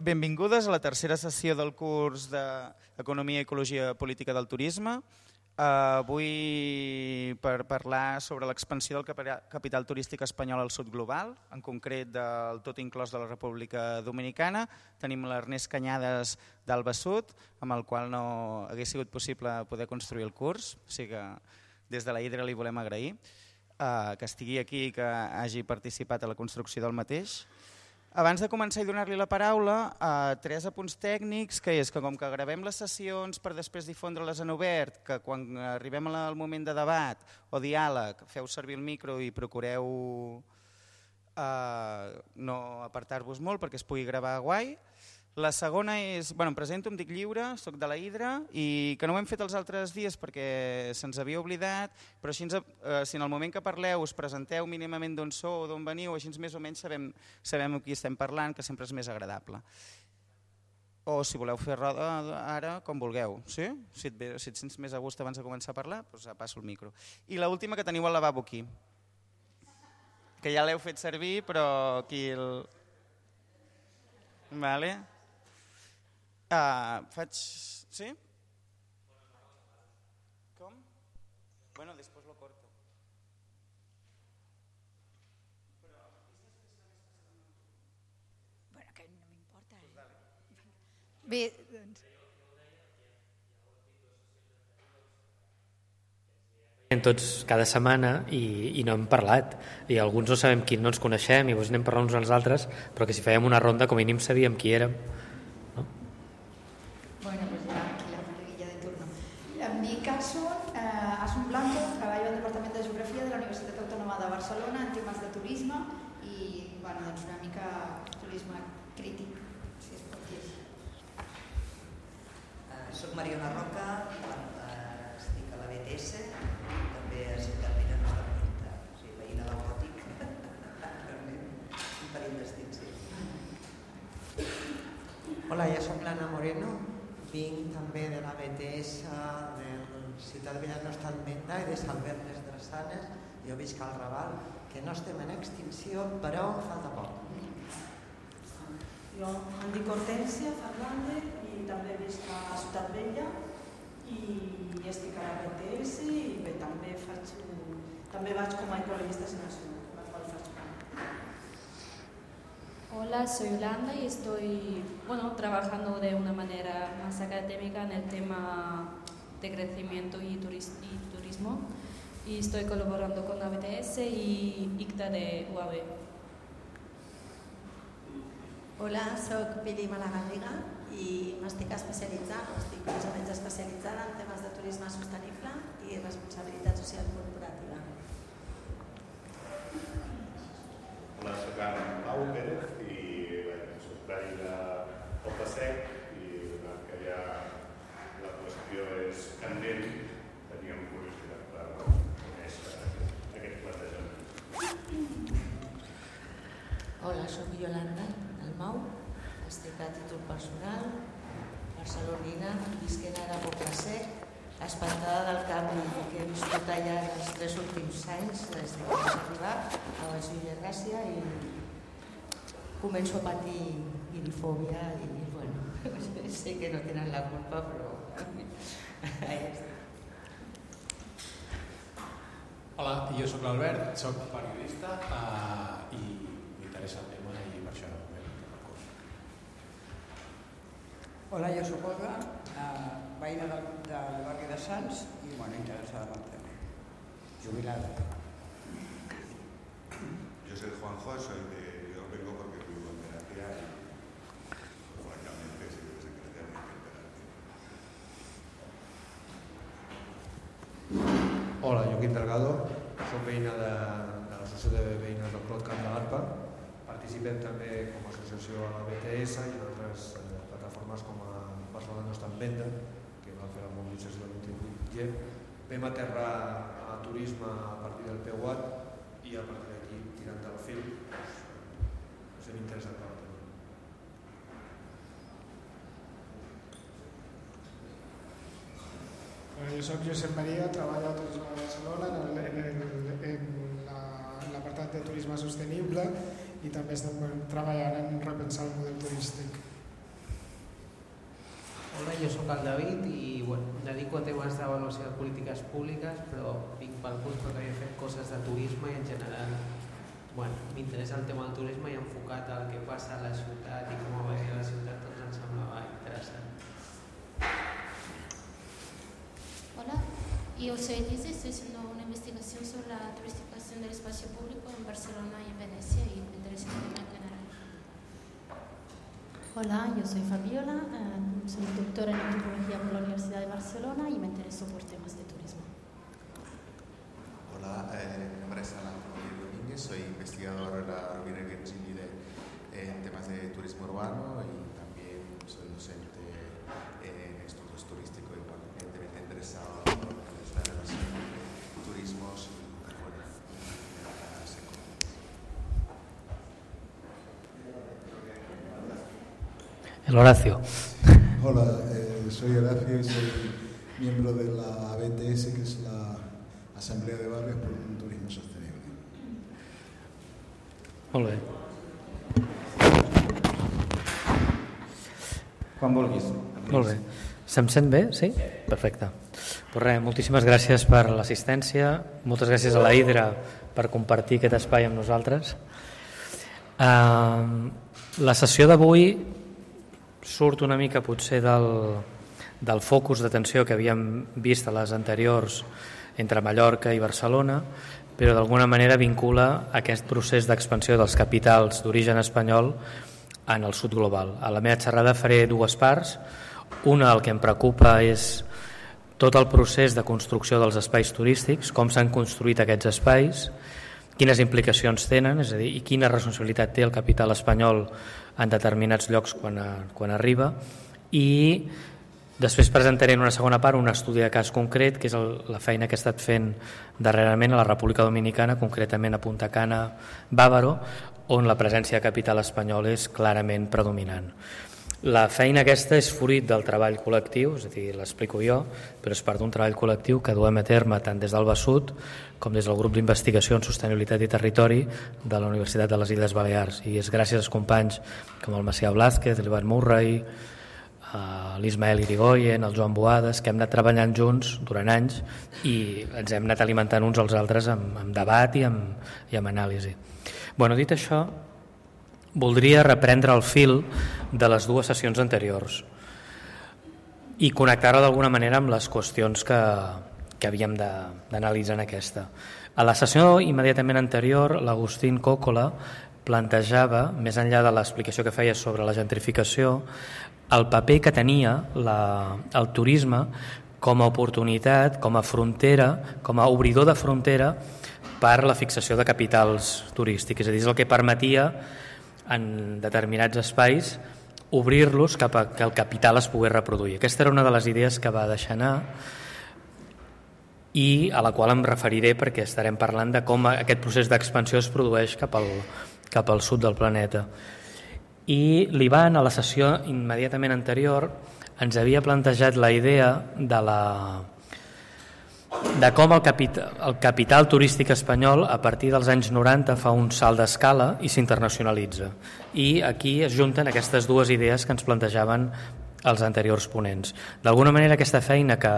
Benvingudes a la tercera sessió del curs d'Economia i Ecologia Política del Turisme. Avui per parlar sobre l'expansió del capital turístic espanyol al sud global, en concret del tot inclòs de la República Dominicana. Tenim l'Ernest Cañades d'Alba Sud, amb el qual no hagués sigut possible poder construir el curs. O sigui que des de la Hidra li volem agrair que estigui aquí i que hagi participat a la construcció del mateix. Abans de començar i donar-li la paraula, tres apunts tècnics, que és que com que gravem les sessions per després difondre-les en obert, que quan arribem al moment de debat o diàleg feu servir el micro i procureu no apartar-vos molt perquè es pugui gravar guai. La segona és, em presento, em dic Lliure, soc de la Hidra i que no ho hem fet els altres dies perquè se'ns havia oblidat, però així si en el moment que parleu us presenteu mínimament d'on sou o d'on veniu, així més o menys sabem amb qui estem parlant, que sempre és més agradable. O si voleu fer roda ara, com vulgueu. Sí? Si et sents més a gust abans de començar a parlar, doncs passo el micro. I l'última, que teniu el lavabo aquí, que ja l'heu fet servir, però aquí el... Vale. Faig... Sí? Com? Bueno, després lo corto. Bueno, que no m'importa. Bé, doncs... Tots cada setmana i no hem parlat i alguns no sabem qui no ens coneixem i anem parlant uns als altres, però que si fèiem una ronda com a mínim sabíem qui érem, no? Bueno, pues ya aquí la monaguilla de turno. En mi caso, Asun Blanco, treballo al Departament de Geografia de la Universitat Autònoma de Barcelona en temes de turisme i doncs una mica turisme crític, si es pot dir. Soc Mariona Roca, estic a la BTS, també a Ciutat Vella Nostra Petita, o sigui, veïna del Gòtic, un parell d'estils. Hola, jo soc l'Anna Moreno, vinc també de la BTS de Ciutat Vella Nostra Petita i de Sant Bernes Drassanes. Jo visc al Raval, que no estem en extinció, però falta poc. Jo em dic Hortència Fernández i també visc a Ciutat Vella i estic a la BTS i bé, també vaig com a ecologista nacional, la qual faig part. Hola, soy Yolanda y estoy trabajando de una manera más académica en el tema de crecimiento y turismo y estoy colaborando con la BTS y ICTA de UAB. Hola, soc Pili Malagarriga i m'estic especialitzant, estic més o menys especialitzada en temes de turisme sostenible i responsabilitat social corporativa. Hola, soc en Pau Pérez i soc veí de Poble-sec i donat que ja la qüestió és candent, teníem curiositat per conèixer aquest plantejament. Hola, soc Yolanda Dalmau, estic a títol personal, barcelonina, visquent ara a Poble-sec, espantada del canvi que he viscut allà els 3 últims anys, des que vaig arribar a la Vila Gràcia i començo a patir irifòbia i, sé que no tenen la culpa, però ja està. Hola, jo soc l'Albert, soc periodista i m'interessa el tema i per això vam fer el curs. Hola, jo soc Olga, veïna del barri de Sants i interessada en el tema, jubilada. Yo soy Juanjo, yo vengo porque vivo en Terapia y francamente si vives en Terapia me encantará. Hola, Joaquín Delgado, soc veïna de l'Associació de Veïnes del Clot Camp de l'Arpa. Participem també com a associació a la BTS i en altres plataformes com a Barcelona no està en venda, que van fer la mobilització del 28G. Vam aterrar a turisme a partir del PUAT i a partir d'aquí, tirant del fil, ens hem interessat per el tema. Jo soc Josep Maria, treballo a Turisme de Barcelona en l'apartat de turisme sostenible i també estem treballant en repensar el model turístic. jo sóc el David i em dedico a temes d'avaluació de polítiques públiques, però vinc pel curs perquè he fet coses de turisme i en general m'interessa el tema del turisme i enfocat al que passa a la ciutat i com va venir a la ciutat, doncs em semblava interessant. Hola, yo soy Elisa, estoy haciendo una investigación sobre la turistificación del espacio público en Barcelona y en Venecia y me interesa el tema en general. Hola, yo soy Fabiola, soy doctora en antropología por la Universidad de Barcelona y me intereso por temas de turismo. Hola, mi nombre es Alan Domínguez, soy investigador de la Rovira y Virginia en temas de turismo urbano y también soy docente en estudios turísticos y evidentemente interesado en la relación de turismos y El Horacio. Hola, soy Horacio y soy miembro de la ABTS, que es la Asamblea de Barrios por un Turismo Sostenible. Molt bé. Quan vulguis. Molt bé. Se'm sent bé? Sí? Perfecte. Pues res, moltíssimes gràcies per l'assistència, moltes gràcies a la Hidra per compartir aquest espai amb nosaltres. La sessió d'avui surt una mica potser del focus d'atenció que havíem vist a les anteriors entre Mallorca i Barcelona, però d'alguna manera vincula aquest procés d'expansió dels capitals d'origen espanyol en el sud global. A la meva xerrada faré dues parts. Una, el que em preocupa és tot el procés de construcció dels espais turístics, com s'han construït aquests espais, quines implicacions tenen, és a dir, i quina responsabilitat té el capital espanyol en determinats llocs quan arriba, i després presentaré en una segona part un estudi de cas concret, que és la feina que he estat fent darrerament a la República Dominicana, concretament a Punta Cana, Bávaro, on la presència de capital espanyol és clarament predominant. La feina aquesta és fruit del treball col·lectiu, és a dir, l'explico jo, però és part d'un treball col·lectiu que duem a terme tant des del BASUT com des del grup d'investigació en sostenibilitat i territori de la Universitat de les Illes Balears. I és gràcies als companys com el Macià Blázquez, l'Ivan Murray, l'Ismael Irigoyen, el Joan Boades, que hem anat treballant junts durant anys i ens hem anat alimentant uns als altres amb debat i amb anàlisi. Bueno, dit això, voldria reprendre el fil de les dues sessions anteriors i connectar-ho d'alguna manera amb les qüestions que havíem d'analitzar en aquesta. A la sessió immediatament anterior, l'Agustín Còcola plantejava, més enllà de l'explicació que feia sobre la gentrificació, el paper que tenia el turisme com a oportunitat, com a frontera, com a obridor de frontera per la fixació de capitals turístics. És a dir, és el que permetia en determinats espais obrir-los cap a que el capital es pogués reproduir. Aquesta era una de les idees que va deixar anar i a la qual em referiré perquè estarem parlant de com aquest procés d'expansió es produeix cap al sud del planeta. I l'Ivan, a la sessió immediatament anterior, ens havia plantejat la idea de com el capital turístic espanyol a partir dels anys 90 fa un salt d'escala i s'internacionalitza. I aquí es junten aquestes dues idees que ens plantejaven els anteriors ponents. D'alguna manera aquesta feina que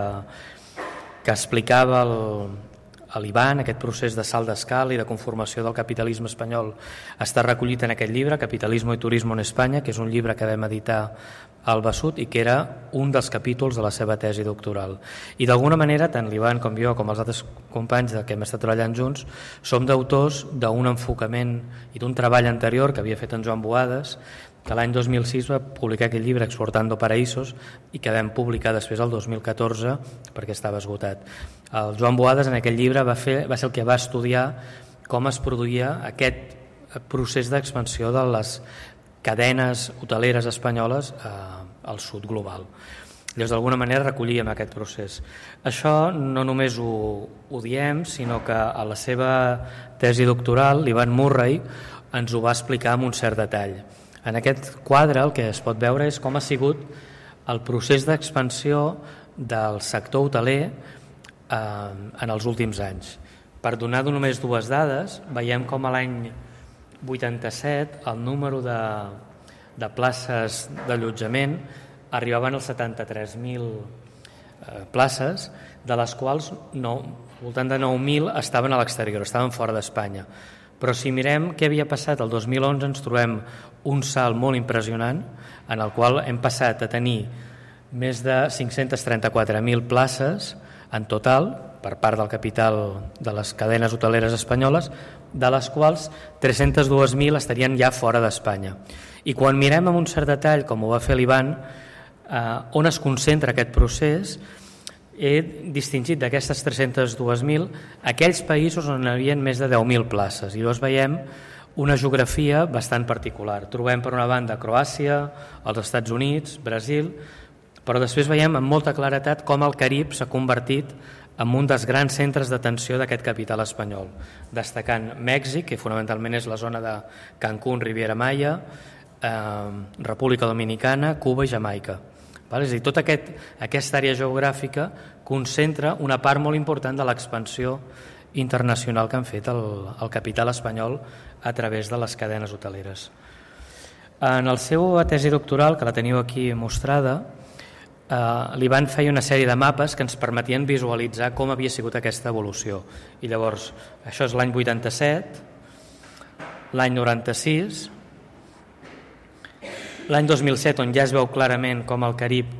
explicava l'Ivan, aquest procés de salt d'escala i de conformació del capitalisme espanyol, està recollit en aquest llibre, Capitalismo y Turismo en España, que és un llibre que vam editar al BASUT i que era un dels capítols de la seva tesi doctoral. I d'alguna manera, tant l'Ivan com jo, com els altres companys que hem estat treballant junts, som d'autors d'un enfocament i d'un treball anterior que havia fet en Joan Boades, que l'any 2006 va publicar aquest llibre Exportando Paraísos i que vam publicar després el 2014 perquè estava esgotat. El Joan Boades en aquell llibre va ser el que va estudiar com es produïa aquest procés d'expansió de les cadenes hoteleres espanyoles al sud global. Llavors, d'alguna manera, recollíem aquest procés. Això no només ho diem, sinó que a la seva tesi doctoral, l'Ivan Murray ens ho va explicar amb un cert detall. En aquest quadre el que es pot veure és com ha sigut el procés d'expansió del sector hoteler en els últims anys. Per donar només dues dades, veiem com a l'any 87 el número de places d'allotjament arribaven als 73.000 places, de les quals al voltant de 9.000 estaven a l'exterior, estaven fora d'Espanya. Però si mirem què havia passat el 2011 ens trobem un salt molt impressionant en el qual hem passat a tenir més de 534.000 places en total per part del capital de les cadenes hoteleres espanyoles, de les quals 302.000 estarien ja fora d'Espanya. I quan mirem amb un cert detall, com ho va fer l'Ivan, on es concentra aquest procés, he distingit d'aquestes 302.000 aquells països on hi havia més de 10.000 places, i llavors veiem una geografia bastant particular. Trobem per una banda Croàcia, els Estats Units, Brasil, però després veiem amb molta claretat com el Carib s'ha convertit en un dels grans centres d'atenció d'aquest capital espanyol, destacant Mèxic, que fonamentalment és la zona de Cancún, Riviera Maya, República Dominicana, Cuba i Jamaica. És a dir, tota aquesta àrea geogràfica concentra una part molt important de l'expansió internacional que han fet el capital espanyol a través de les cadenes hoteleres. En la seva tesi doctoral, que la teniu aquí mostrada, l'Ivan feia una sèrie de mapes que ens permetien visualitzar com havia sigut aquesta evolució. I llavors, això és l'any 87, l'any 96, l'any 2007, on ja es veu clarament com el Carib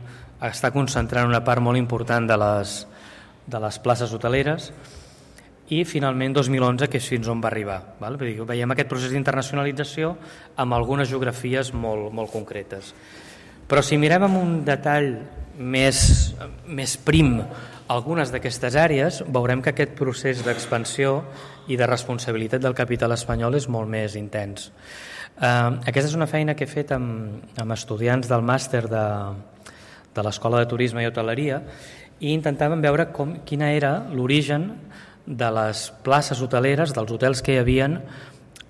està concentrant una part molt important de les places hoteleres, i finalment 2011, que és fins on va arribar. Veiem aquest procés d'internacionalització amb algunes geografies molt concretes. Però si mirem amb un detall més prim algunes d'aquestes àrees, veurem que aquest procés d'expansió i de responsabilitat del capital espanyol és molt més intens. Aquesta és una feina que he fet amb estudiants del màster de l'Escola de Turisme i Hoteleria, i intentàvem veure quina era l'origen de les places hoteleres, dels hotels que hi havien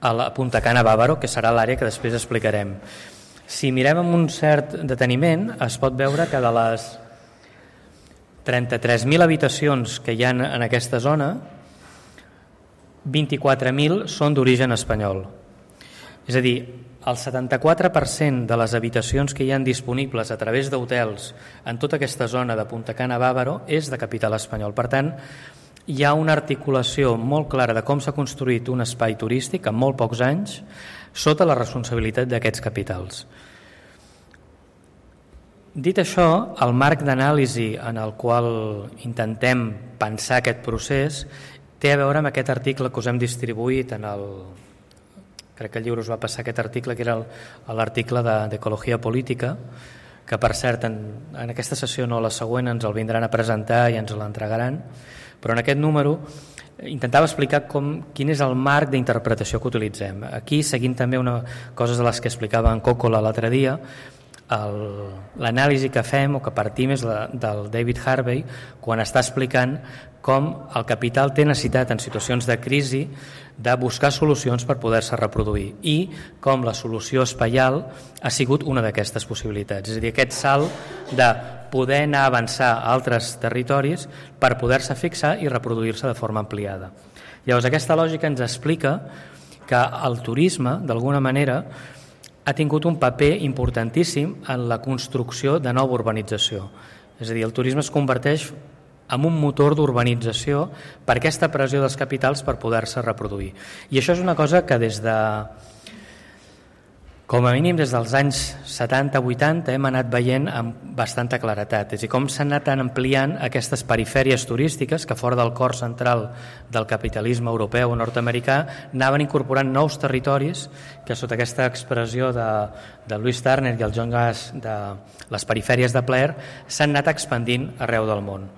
a la Punta Cana Bávaro, que serà l'àrea que després explicarem. Si mirem amb un cert deteniment, es pot veure que de les 33.000 habitacions que hi ha en aquesta zona, 24.000 són d'origen espanyol. És a dir, el 74% de les habitacions que hi ha disponibles a través d'hotels en tota aquesta zona de Punta Cana Bávaro és de capital espanyol. Per tant, hi ha una articulació molt clara de com s'ha construït un espai turístic en molt pocs anys sota la responsabilitat d'aquests capitals. Dit això, el marc d'anàlisi en el qual intentem pensar aquest procés té a veure amb aquest article que us hem distribuït crec que el llibre us va passar aquest article, que era l'article d'Ecologia Política, que per cert en aquesta sessió no, la següent ens el vindran a presentar i ens l'entregaran, però en aquest número intentava explicar quin és el marc d'interpretació que utilitzem. Aquí, seguint també coses de les que explicava en Còcola l'altre dia, l'anàlisi que fem o que partim és del David Harvey, quan està explicant com el capital té necessitat en situacions de crisi de buscar solucions per poder-se reproduir, i com la solució espaial ha sigut una d'aquestes possibilitats. És a dir, aquest salt de poder anar a avançar a altres territoris per poder-se fixar i reproduir-se de forma ampliada. Llavors, aquesta lògica ens explica que el turisme, d'alguna manera, ha tingut un paper importantíssim en la construcció de nova urbanització. És a dir, el turisme es converteix en un motor d'urbanització per aquesta pressió dels capitals per poder-se reproduir. I això és una cosa que com a mínim des dels anys 70-80 hem anat veient amb bastanta claretat. És a dir, com s'han anat ampliant aquestes perifèries turístiques que fora del cor central del capitalisme europeu o nord-americà anaven incorporant nous territoris que sota aquesta expressió de Louis Turner i el John Gass de les perifèries de plaer s'han anat expandint arreu del món.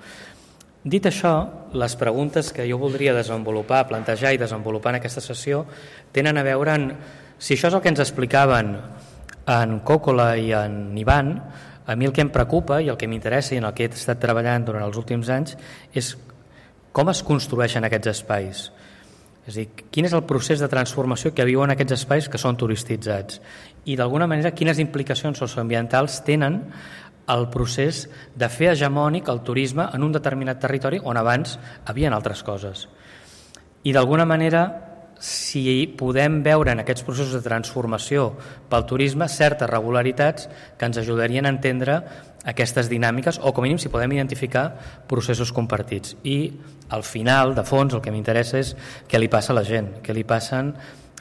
Dit això, les preguntes que jo voldria desenvolupar, plantejar i desenvolupar en aquesta sessió tenen a veure amb si això és el que ens explicaven en Còcola i en Ivan. A mi el que em preocupa i el que m'interessa i en el que he estat treballant durant els últims anys és com es construeixen aquests espais. És a dir, quin és el procés de transformació que viuen aquests espais que són turistitzats i d'alguna manera quines implicacions socioambientals tenen el procés de fer hegemònic el turisme en un determinat territori on abans havien altres coses. I d'alguna manera si podem veure en aquests processos de transformació pel turisme certes regularitats que ens ajudarien a entendre aquestes dinàmiques, o com a mínim si podem identificar processos compartits. I al final, de fons, el que m'interessa és què li passa a la gent, què li passen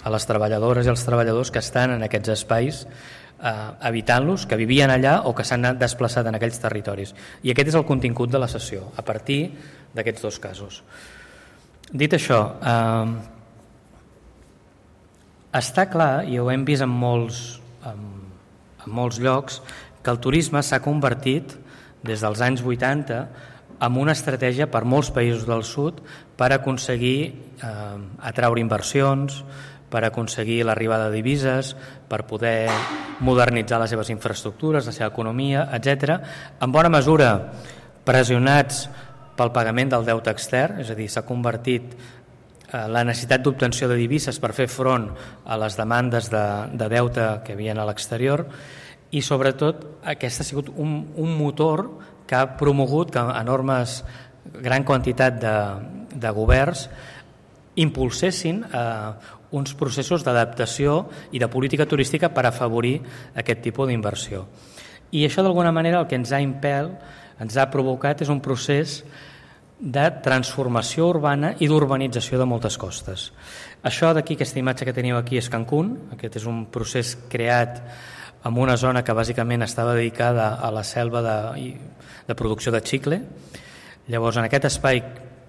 a les treballadores i als treballadors que estan en aquests espais habitant-los, que vivien allà o que s'han desplaçat en aquells territoris. I aquest és el contingut de la sessió, a partir d'aquests dos casos. Dit això, està clar, i ho hem vist en molts llocs, que el turisme s'ha convertit des dels anys 80 en una estratègia per molts països del sud per aconseguir atraure inversions, per aconseguir l'arribada de divises, per poder modernitzar les seves infraestructures, la seva economia, etc. En bona mesura pressionats pel pagament del deute extern, és a dir, s'ha convertit la necessitat d'obtenció de divises per fer front a les demandes de deute que hi havia a l'exterior, i sobretot aquest ha sigut un motor que ha promogut que enormes, gran quantitat de governs impulsessin uns processos d'adaptació i de política turística per afavorir aquest tipus d'inversió. I això d'alguna manera el que ens ha provocat és un procés de transformació urbana i d'urbanització de moltes costes. Això d'aquí, aquesta imatge que teniu aquí és Cancún. Aquest és un procés creat en una zona que bàsicament estava dedicada a la selva de producció de xicle. Llavors, en aquest espai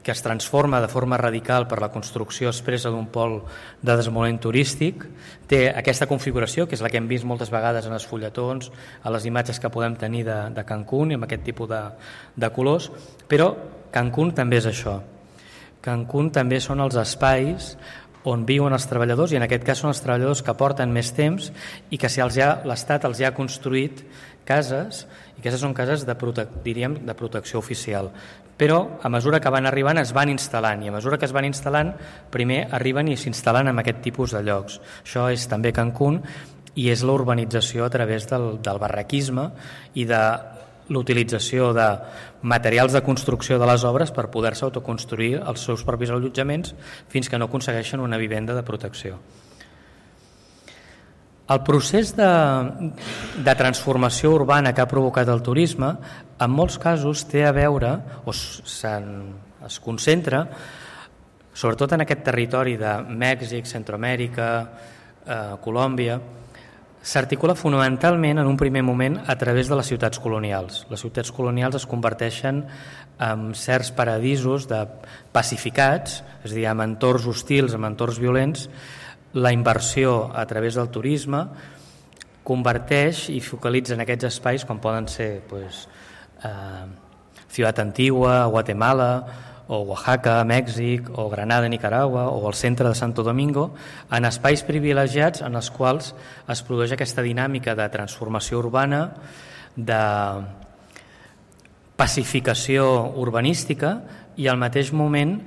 que es transforma de forma radical per la construcció expressa d'un pol de desenvolupament turístic, té aquesta configuració, que és la que hem vist moltes vegades en els fulletons, a les imatges que podem tenir de Cancún, i amb aquest tipus de colors, però Cancún també és això. Cancún també són els espais on viuen els treballadors, i en aquest cas són els treballadors que porten més temps i que si l'Estat els ha construït cases, i aquestes són cases de protecció oficial. Però a mesura que van arribant es van instal·lant, i a mesura que es van instal·lant primer arriben i s'instal·len en aquest tipus de llocs. Això és també Cancún, i és la urbanització a través del barraquisme i de l'utilització de materials de construcció de les obres per poder-se autoconstruir els seus propis allotjaments fins que no aconsegueixen una vivenda de protecció. El procés de transformació urbana que ha provocat el turisme en molts casos té a veure, o es concentra sobretot en aquest territori de Mèxic, Centroamèrica, Colòmbia, s'articula fonamentalment en un primer moment a través de les ciutats colonials. Les ciutats colonials es converteixen en certs paradisos pacificats, és a dir, en entorns hostils, en entorns violents. La inversió a través del turisme converteix i focalitza en aquests espais, com poden ser Ciutat Antigua, Guatemala, o Oaxaca, Mèxic, o Granada, Nicaragua, o el centre de Santo Domingo, en espais privilegiats en els quals es produeix aquesta dinàmica de transformació urbana, de pacificació urbanística i al mateix moment,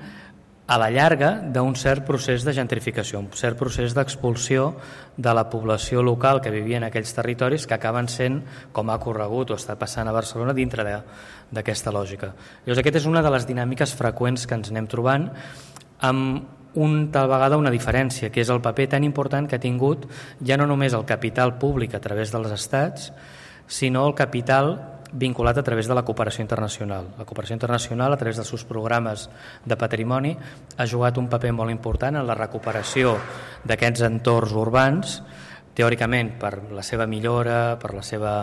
a la llarga, d'un cert procés de gentrificació, un cert procés d'expulsió de la població local que vivia en aquells territoris, que acaben sent, com ha corregut o està passant a Barcelona, dintre d'aquesta lògica. Llavors, aquesta és una de les dinàmiques freqüents que ens anem trobant, amb tal vegada una diferència, que és el paper tan important que ha tingut ja no només el capital públic a través dels estats, sinó el capital vinculat a través de la cooperació internacional. La cooperació internacional, a través dels seus programes de patrimoni, ha jugat un paper molt important en la recuperació d'aquests entorns urbans, teòricament per la seva millora, per la seva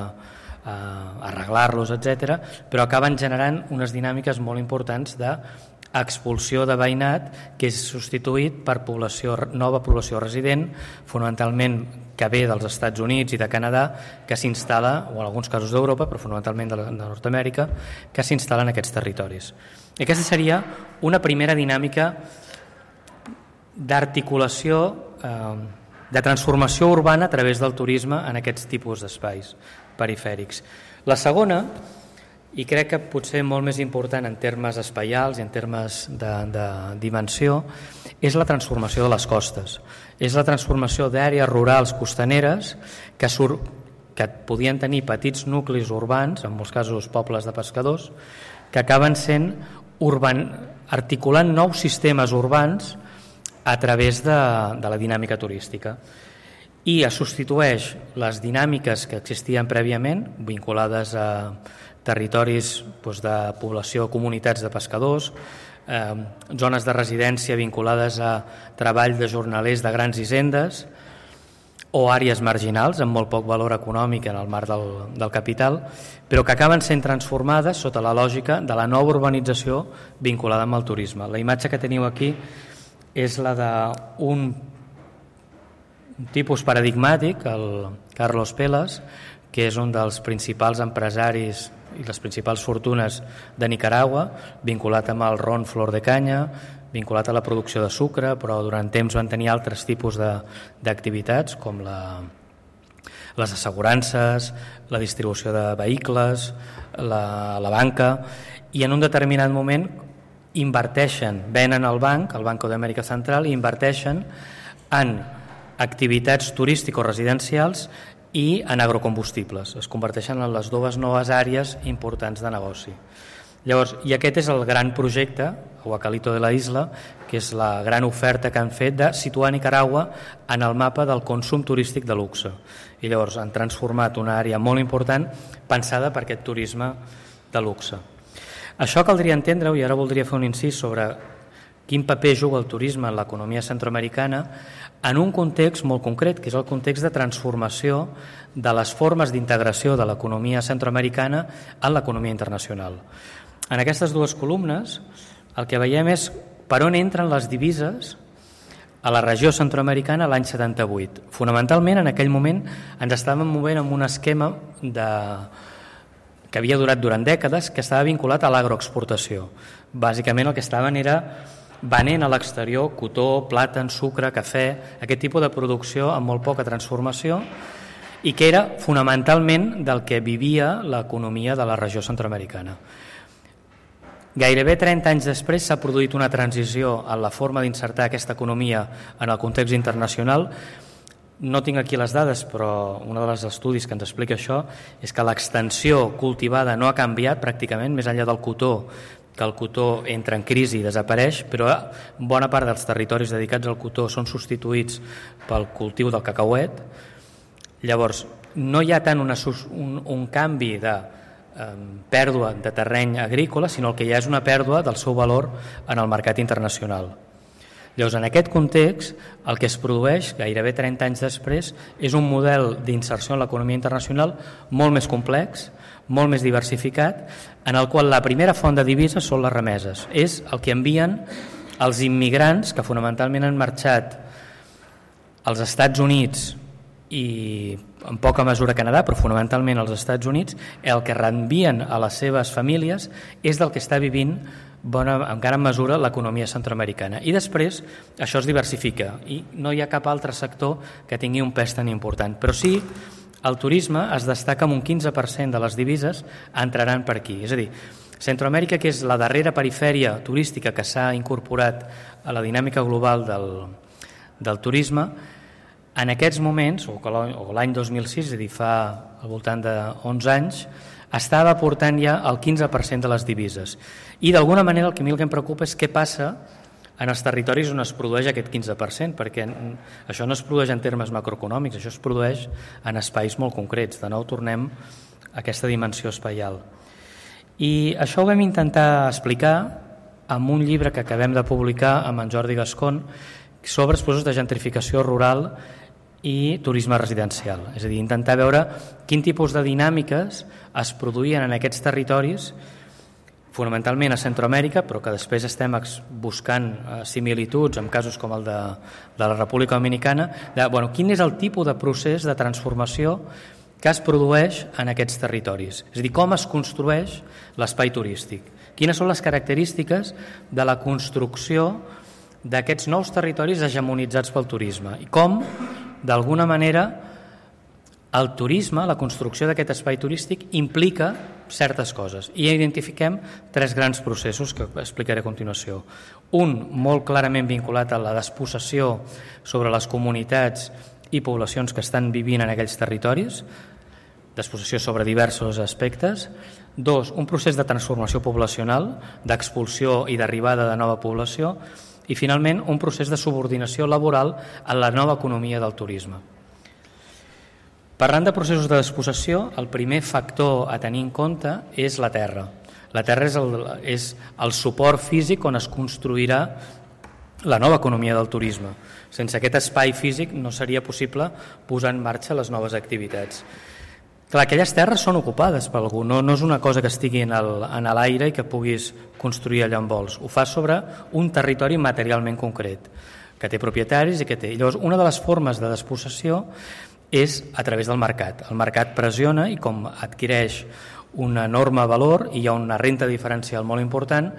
arreglar-los, etc., però acaben generant unes dinàmiques molt importants d'expulsió de veïnat que és substituït per nova població resident, fonamentalment que ve dels Estats Units i de Canadà, que s'instal·la, o en alguns casos d'Europa, però fonamentalment de Nord-Amèrica, que s'instal·la en aquests territoris. I aquesta seria una primera dinàmica d'articulació, de transformació urbana a través del turisme en aquests tipus d'espais perifèrics. La segona, i crec que potser molt més important en termes espaials i en termes de dimensió, és la transformació de les costes. És la transformació d'àrees rurals costaneres que podien tenir petits nuclis urbans, en molts casos pobles de pescadors, que acaben sent articulant nous sistemes urbans a través de la dinàmica turística i es substitueix les dinàmiques que existien prèviament vinculades a territoris de població, comunitats de pescadors, zones de residència vinculades a treball de jornalers de grans hisendes o àrees marginals amb molt poc valor econòmic en el marc del capital, però que acaben sent transformades sota la lògica de la nova urbanització vinculada amb el turisme. La imatge que teniu aquí és la d'un tipus paradigmàtic, el Carlos Pelas, que és un dels principals empresaris i les principals fortunes de Nicaragua, vinculat amb el ron Flor de Canya, vinculat a la producció de sucre, però durant temps van tenir altres tipus d'activitats com les assegurances, la distribució de vehicles, la banca, i en un determinat moment inverteixen, venen al banc, al Banco d'Amèrica Central, i inverteixen en activitats turístico-residencials i en agrocombustibles. Es converteixen en les dues noves àrees importants de negoci. Llavors, i aquest és el gran projecte, Huacalito de la Isla, que és la gran oferta que han fet de situar Nicaragua en el mapa del consum turístic de luxe. I llavors han transformat una àrea molt important pensada per aquest turisme de luxe. Això caldria entendre-ho, i ara voldria fer un incís sobre quin paper juga el turisme en l'economia centroamericana en un context molt concret, que és el context de transformació de les formes d'integració de l'economia centroamericana en l'economia internacional. En aquestes dues columnes el que veiem és per on entren les divises a la regió centroamericana l'any 78. Fonamentalment, en aquell moment ens estàvem movent amb un esquema que havia durat durant dècades, que estava vinculat a l'agroexportació. Bàsicament el que estaven era venent a l'exterior cotó, plàtan, sucre, cafè, aquest tipus de producció amb molt poca transformació i que era fonamentalment del que vivia l'economia de la regió centroamericana. Gairebé 30 anys després s'ha produït una transició en la forma d'insertar aquesta economia en el context internacional. No tinc aquí les dades, però un dels estudis que ens explica això és que l'extensió cultivada no ha canviat pràcticament, més enllà del cotó, que el cotó entra en crisi i desapareix, però bona part dels territoris dedicats al cotó són substituïts pel cultiu del cacauet. Llavors, no hi ha tant un canvi de pèrdua de terreny agrícola, sinó el que hi ha és una pèrdua del seu valor en el mercat internacional. Llavors, en aquest context, el que es produeix gairebé 30 anys després és un model d'inserció en l'economia internacional molt més complex, molt més diversificat, en el qual la primera font de divises són les remeses. És el que envien els immigrants que fonamentalment han marxat als Estats Units i en poca mesura Canadà, però fonamentalment als Estats Units. El que reenvien a les seves famílies és del que està vivint en gran mesura l'economia centroamericana. I després això es diversifica i no hi ha cap altre sector que tingui un pes tan important. Però sí, el turisme es destaca amb un 15% de les divises entraran per aquí. És a dir, Centroamèrica, que és la darrera perifèria turística que s'ha incorporat a la dinàmica global del turisme, en aquests moments, o l'any 2006, és a dir, fa al voltant de 11 anys, estava aportant ja el 15% de les divises. I d'alguna manera el que a mi el que em preocupa és què passa en els territoris on es produeix aquest 15%, perquè això no es produeix en termes macroeconòmics, això es produeix en espais molt concrets. De nou tornem a aquesta dimensió espaial. I això ho vam intentar explicar amb un llibre que acabem de publicar amb en Jordi Gascon sobre els processos de gentrificació rural i turisme residencial. És a dir, intentar veure quin tipus de dinàmiques es produïen en aquests territoris, fonamentalment a Centroamèrica, però que després estem buscant similituds en casos com el de la República Dominicana, quin és el tipus de procés de transformació que es produeix en aquests territoris. És a dir, com es construeix l'espai turístic. Quines són les característiques de la construcció d'aquests nous territoris hegemonitzats pel turisme i com, d'alguna manera, el turisme, la construcció d'aquest espai turístic implica certes coses. I identifiquem 3 grans processos que explicaré a continuació. Un molt clarament vinculat a la despossessió sobre les comunitats i poblacions que estan vivint en aquells territoris, despossessió sobre diversos aspectes. 2, un procés de transformació poblacional, d'expulsió i d'arribada de nova població. i finalment un procés de subordinació laboral a la nova economia del turisme. Parlant de processos de despossessió, el primer factor a tenir en compte és la terra. La terra és el suport físic on es construirà la nova economia del turisme. Sense aquest espai físic no seria possible posar en marxa les noves activitats. Clar, aquelles terres són ocupades per algú, no és una cosa que estigui en l'aire i que puguis construir allà on vols. Ho fa sobre un territori materialment concret, que té propietaris i que té. Llavors, una de les formes de despossessió és a través del mercat. El mercat pressiona i com adquireix un enorme valor i hi ha una renta diferencial molt important,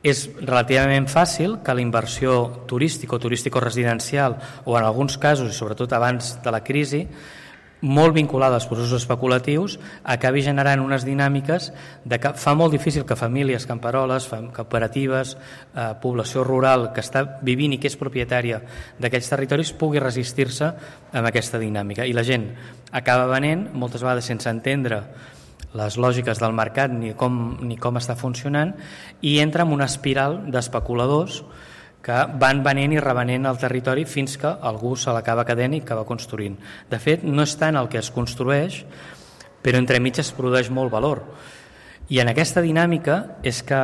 és relativament fàcil que la inversió turística o turístico-residencial o en alguns casos, i sobretot abans de la crisi, molt vinculada als processos especulatius, acabi generant unes dinàmiques de que fa molt difícil que famílies, camperoles, cooperatives, població rural que està vivint i que és propietària d'aquells territoris pugui resistir-se amb aquesta dinàmica. I la gent acaba venent, moltes vegades sense entendre les lògiques del mercat ni com està funcionant, i entra en una espiral d'especuladors que van venent i revenent el territori fins que algú se l'acaba quedant i acaba construint. De fet, no és tant el que es construeix, però entremig es produeix molt valor. I en aquesta dinàmica és que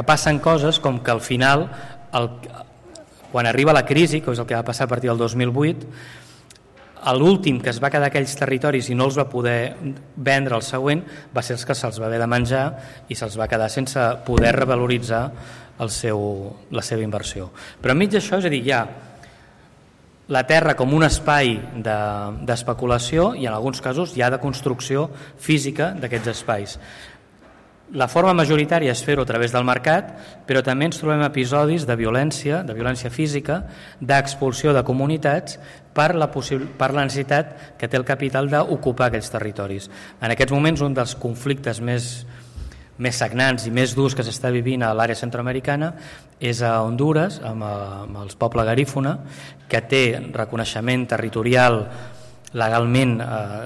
passen coses com que al final, quan arriba la crisi, que és el que va passar a partir del 2008, l'últim que es va quedar aquells territoris i no els va poder vendre el següent va ser els que se'ls va haver de menjar i se'ls va quedar sense poder revaloritzar la seva inversió. Però enmig d'això, és a dir, hi ha la terra com un espai d'especulació i en alguns casos hi ha de construcció física d'aquests espais. La forma majoritària és fer-ho a través del mercat, però també ens trobem episodis de violència física, d'expulsió de comunitats per la necessitat que té el capital d'ocupar aquells territoris. En aquests moments, un dels conflictes més sagnants i més durs que s'està vivint a l'àrea centroamericana és a Honduras, amb el poble garífuna, que té reconeixement territorial legalment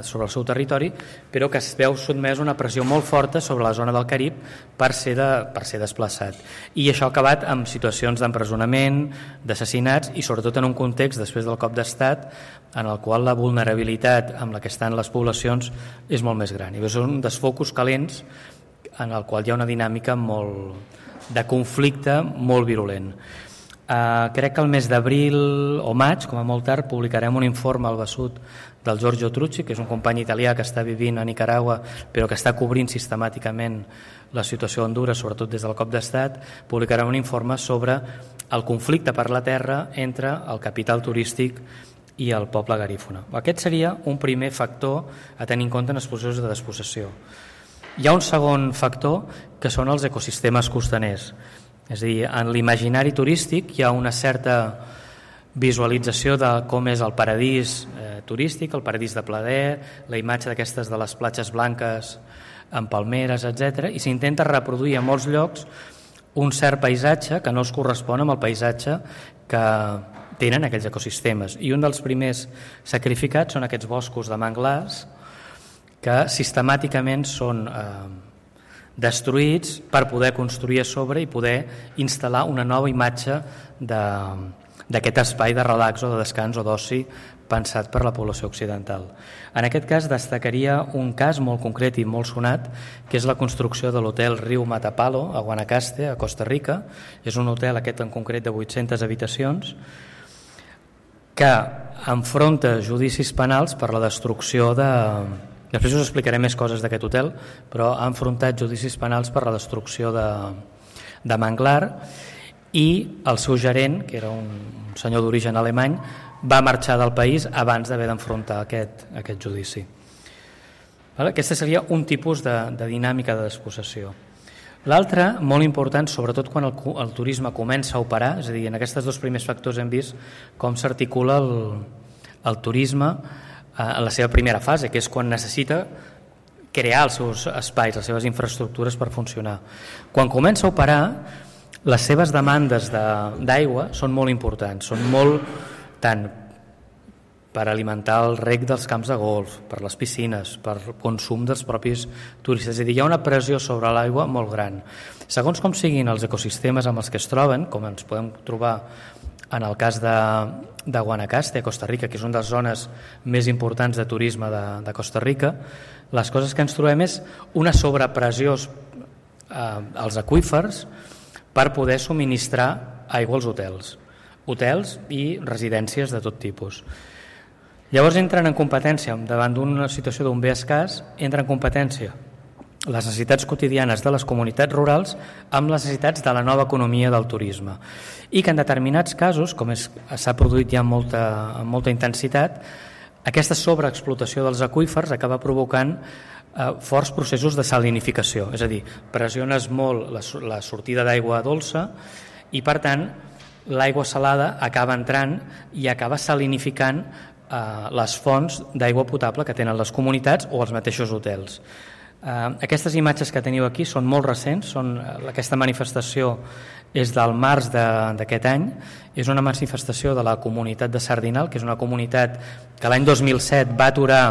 sobre el seu territori, però que es veu sotmès a una pressió molt forta sobre la zona del Carib per ser desplaçat. I això ha acabat amb situacions d'empresonament, d'assassinats i sobretot en un context després del cop d'estat en el qual la vulnerabilitat amb la que estan les poblacions és molt més gran. I són dels focus calents en el qual hi ha una dinàmica de conflicte molt virulent. Crec que el mes d'abril o maig, com a molt tard, publicarem un informe al Besut del Giorgio Trucci, que és un company italià que està vivint a Nicaragua però que està cobrint sistemàticament la situació a Honduras, sobretot des del cop d'estat. Publicarem un informe sobre el conflicte per la terra entre el capital turístic i el poble garífuna. Aquest seria un primer factor a tenir en compte en els processos de despossessió. Hi ha un segon factor que són els ecosistemes costaners. És a dir, en l'imaginari turístic hi ha una certa visualització de com és el paradís turístic, el paradís de plaer, la imatge d'aquestes de les platges blanques amb palmeres, etc. I s'intenta reproduir a molts llocs un cert paisatge que no es correspon amb el paisatge que tenen aquells ecosistemes. I un dels primers sacrificats són aquests boscos de manglars que sistemàticament són destruïts per poder construir a sobre i poder instal·lar una nova imatge d'aquest espai de relax o de descans o d'oci pensat per la població occidental. En aquest cas destacaria un cas molt concret i molt sonat, que és la construcció de l'hotel Riu Matapalo a Guanacaste, a Costa Rica. És un hotel, aquest en concret, de 800 habitacions, que enfronta judicis penals per la destrucció de... Després us explicaré més coses d'aquest hotel, però ha enfrontat judicis penals per la destrucció de manglar, i el seu gerent, que era un senyor d'origen alemany, va marxar del país abans d'haver d'enfrontar aquest judici. Aquesta seria un tipus de dinàmica de despossessió. L'altre, molt important, sobretot quan el turisme comença a operar, és a dir, en aquests dos primers factors hem vist com s'articula el turisme en la seva primera fase, que és quan necessita crear els seus espais, les seves infraestructures per funcionar. Quan comença a operar, les seves demandes d'aigua són molt importants, són molt tant per alimentar el reg dels camps de golf, per les piscines, per consum dels propis turistes. És a dir, hi ha una pressió sobre l'aigua molt gran. Segons com siguin els ecosistemes amb els que es troben, com ens podem trobar en el cas de Guanacaste, a Costa Rica, que és una de les zones més importants de turisme de Costa Rica, les coses que ens trobem és una sobrepressió als aqüífers per poder subministrar aigua als hotels i residències de tot tipus. Llavors entren en competència, davant d'una situació d'un bé escàs, entren en competència les necessitats quotidianes de les comunitats rurals amb les necessitats de la nova economia del turisme. I que en determinats casos, com s'ha produït ja amb molta intensitat, aquesta sobreexplotació dels aqüífers acaba provocant forts processos de salinificació, és a dir, pressiones molt la sortida d'aigua dolça i per tant l'aigua salada acaba entrant i acaba salinificant les fonts d'aigua potable que tenen les comunitats o els mateixos hotels. Aquestes imatges que teniu aquí són molt recents, aquesta manifestació és del març d'aquest any, és una manifestació de la comunitat de Sardinal, que és una comunitat que l'any 2007 va aturar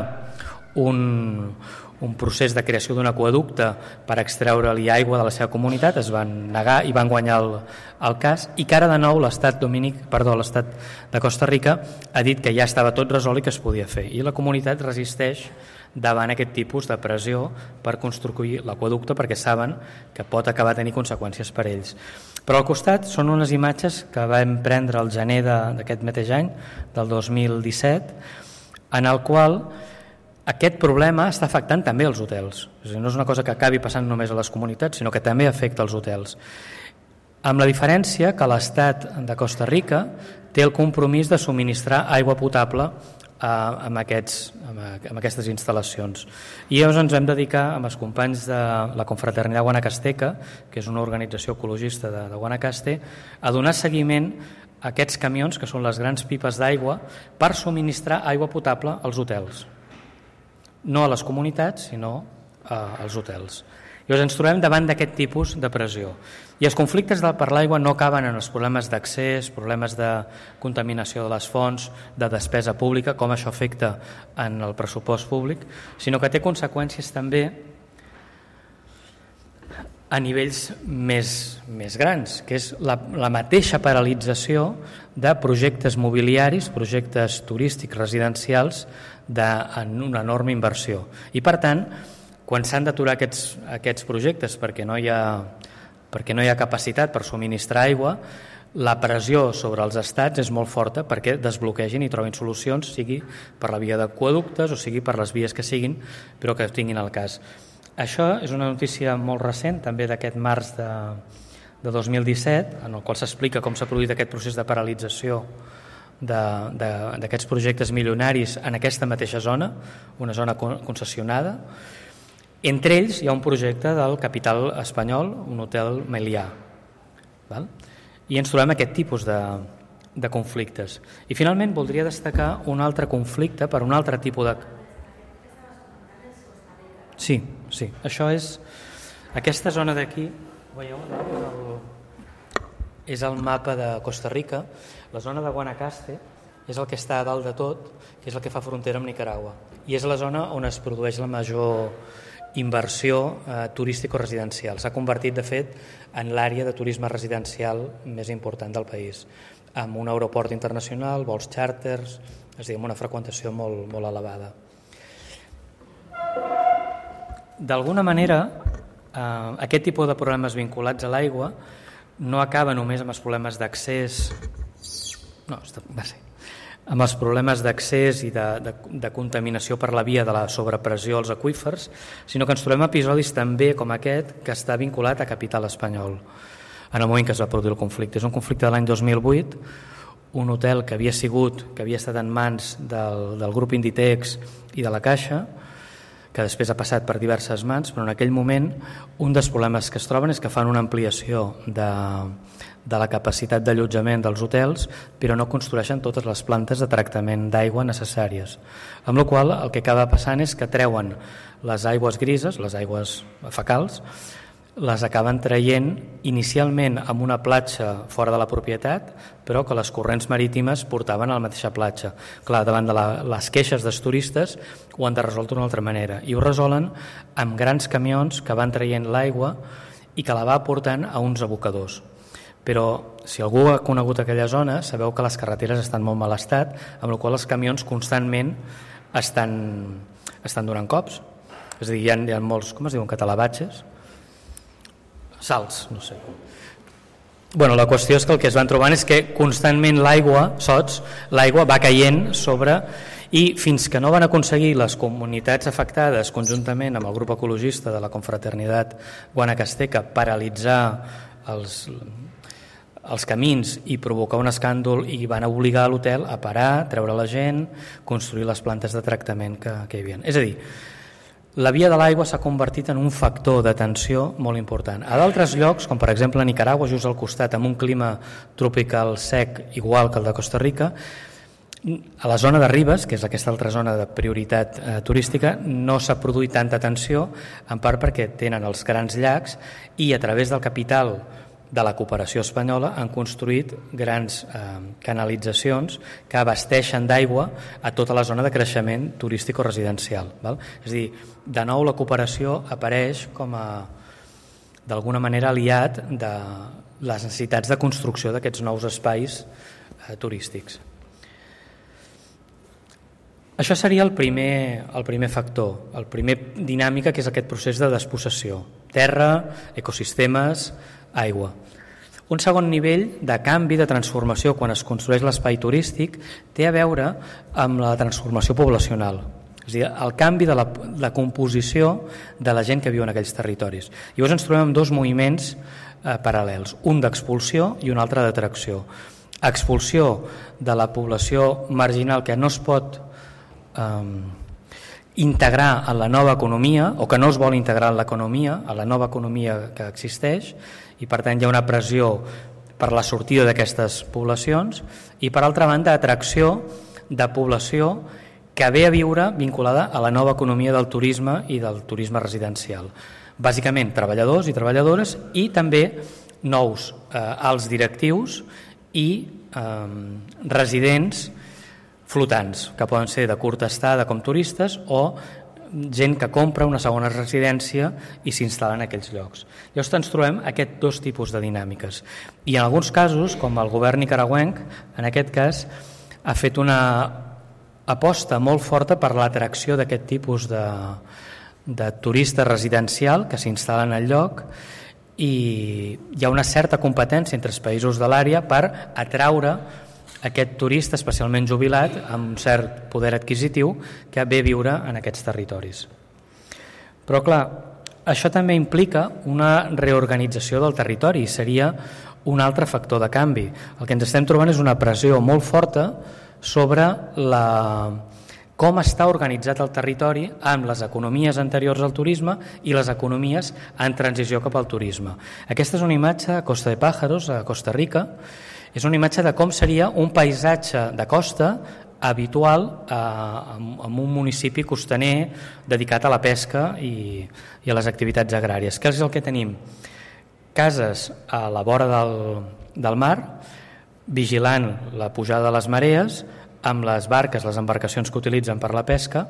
un procés de creació d'un aqüeducte per extreure-li aigua de la seva comunitat, es van negar i van guanyar el cas, i que ara de nou l'Estat de Costa Rica ha dit que ja estava tot resolt i que es podia fer, i la comunitat resisteix davant aquest tipus de pressió per construir l'aqüeducte perquè saben que pot acabar tenint conseqüències per ells. Però al costat són unes imatges que vam prendre al gener d'aquest mateix any, del 2017, en el qual aquest problema està afectant també els hotels. És a dir, no és una cosa que acabi passant només a les comunitats, sinó que també afecta els hotels. Amb la diferència que l'Estat de Costa Rica té el compromís de subministrar aigua potable amb aquestes instal·lacions. I llavors ens vam dedicar amb els companys de la Confraternidad Guanacasteca, que és una organització ecologista de Guanacaste, a donar seguiment a aquests camions, que són les grans pipes d'aigua, per subministrar aigua potable als hotels. No a les comunitats, sinó als hotels. Llavors ens trobem davant d'aquest tipus de pressió. I els conflictes per l'aigua no acaben en els problemes d'accés, problemes de contaminació de les fonts, de despesa pública, com això afecta en el pressupost públic, sinó que té conseqüències també a nivells més grans, que és la mateixa paralització de projectes mobiliaris, projectes turístics residencials en una enorme inversió. I per tant, quan s'han d'aturar aquests projectes perquè no hi ha capacitat per subministrar aigua, la pressió sobre els estats és molt forta perquè desbloquegin i trobin solucions, sigui per la via d'aqüeductes o sigui per les vies que siguin, però que tinguin el cas. Això és una notícia molt recent, també d'aquest març de 2017, en el qual s'explica com s'ha produït aquest procés de paralització d'aquests projectes milionaris en aquesta mateixa zona, una zona concessionada. Entre ells hi ha un projecte del capital espanyol, un hotel Melià. I ens trobem aquest tipus de conflictes. I finalment voldria destacar un altre conflicte per un altre tipus de... Sí, això és... Aquesta zona d'aquí, veieu, és el mapa de Costa Rica. La zona de Guanacaste és el que està a dalt de tot, que és el que fa frontera amb Nicaragua. I és la zona on es produeix la major inversió turístico-residencial. S'ha convertit, de fet, en l'àrea de turisme residencial més important del país, amb un aeroport internacional, vols xàrters, és a dir, amb una freqüentació molt elevada. D'alguna manera, aquest tipus de problemes vinculats a l'aigua no acaba només amb els problemes d'accés, amb els problemes d'accés i de contaminació per la via de la sobrepressió als aqüífers, sinó que ens trobem episodis també com aquest que està vinculat a capital espanyol en el moment que es va produir el conflicte. És un conflicte de l'any 2008, un hotel que havia estat en mans del grup Inditex i de la Caixa, que després ha passat per diverses mans, però en aquell moment un dels problemes que es troben és que fan una ampliació de la capacitat d'allotjament dels hotels, però no construeixen totes les plantes de tractament d'aigua necessàries. Amb la qual cosa el que acaba passant és que treuen les aigües grises, les aigües fecals, les acaben traient inicialment amb una platja fora de la propietat, però que les corrents marítimes portaven a la mateixa platja. Clar, davant de les queixes dels turistes ho han de resoldre d'una altra manera, i ho resolen amb grans camions que van traient l'aigua i que la va portant a uns abocadors. Però si algú ha conegut aquella zona, sabeu que les carreteres estan molt mal estat, amb la qual els camions constantment estan donant cops. És a dir, hi ha molts, com es diuen, catalabatges? Salts, no sé. Bueno, la qüestió és que el que es van trobant és que constantment l'aigua va caient sobre, i fins que no van aconseguir les comunitats afectades conjuntament amb el grup ecologista de la Confraternitat Guanacasteca paralitzar els camins i provocar un escàndol, i van obligar l'hotel a parar, treure la gent, construir les plantes de tractament que hi havia. És a dir, la via de l'aigua s'ha convertit en un factor de tensió molt important. A d'altres llocs, com per exemple a Nicaragua, just al costat, amb un clima tropical sec igual que el de Costa Rica, a la zona de Ribes, que és aquesta altra zona de prioritat turística, no s'ha produït tanta tensió, en part perquè tenen els grans llacs i a través del capital de la cooperació espanyola han construït grans canalitzacions que abasteixen d'aigua a tota la zona de creixement turístic o residencial. És a dir, de nou la cooperació apareix com a d'alguna manera aliat de les necessitats de construcció d'aquests nous espais turístics. Això seria el primer factor, el primer dinàmica, que és aquest procés de despossessió. Terra, ecosistemes, aigua. Un segon nivell de canvi, de transformació, quan es construeix l'espai turístic, té a veure amb la transformació poblacional. És a dir, el canvi de la composició de la gent que viu en aquells territoris. Llavors ens trobem amb dos moviments paral·lels, un d'expulsió i un altre d'atracció. Expulsió de la població marginal que no es pot integrar en la nova economia, o que no es vol integrar en l'economia, a la nova economia que existeix, i per tant hi ha una pressió per la sortida d'aquestes poblacions, i per altra banda atracció de població que ve a viure vinculada a la nova economia del turisme i del turisme residencial. Bàsicament treballadors i treballadores, i també nous alts directius i residents flotants, que poden ser de curta estada com turistes o gent que compra una segona residència i s'instal·la en aquells llocs. Llavors ens trobem aquests dos tipus de dinàmiques. I en alguns casos, com el govern nicaragüenc, en aquest cas, ha fet una aposta molt forta per l'atracció d'aquest tipus de turista residencial que s'instal·len al lloc, i hi ha una certa competència entre els països de l'àrea per atraure aquest turista especialment jubilat amb un cert poder adquisitiu que ve a viure en aquests territoris. Però clar, això també implica una reorganització del territori, seria un altre factor de canvi. El que ens estem trobant és una pressió molt forta sobre com està organitzat el territori amb les economies anteriors al turisme i les economies en transició cap al turisme. Aquesta és una imatge a Costa de Pájaros, a Costa Rica. És una imatge de com seria un paisatge de costa habitual en un municipi costaner dedicat a la pesca i a les activitats agràries. Què és el que tenim? Cases a la vora del mar, vigilant la pujada de les marees, amb les barques, les embarcacions que utilitzen per la pesca,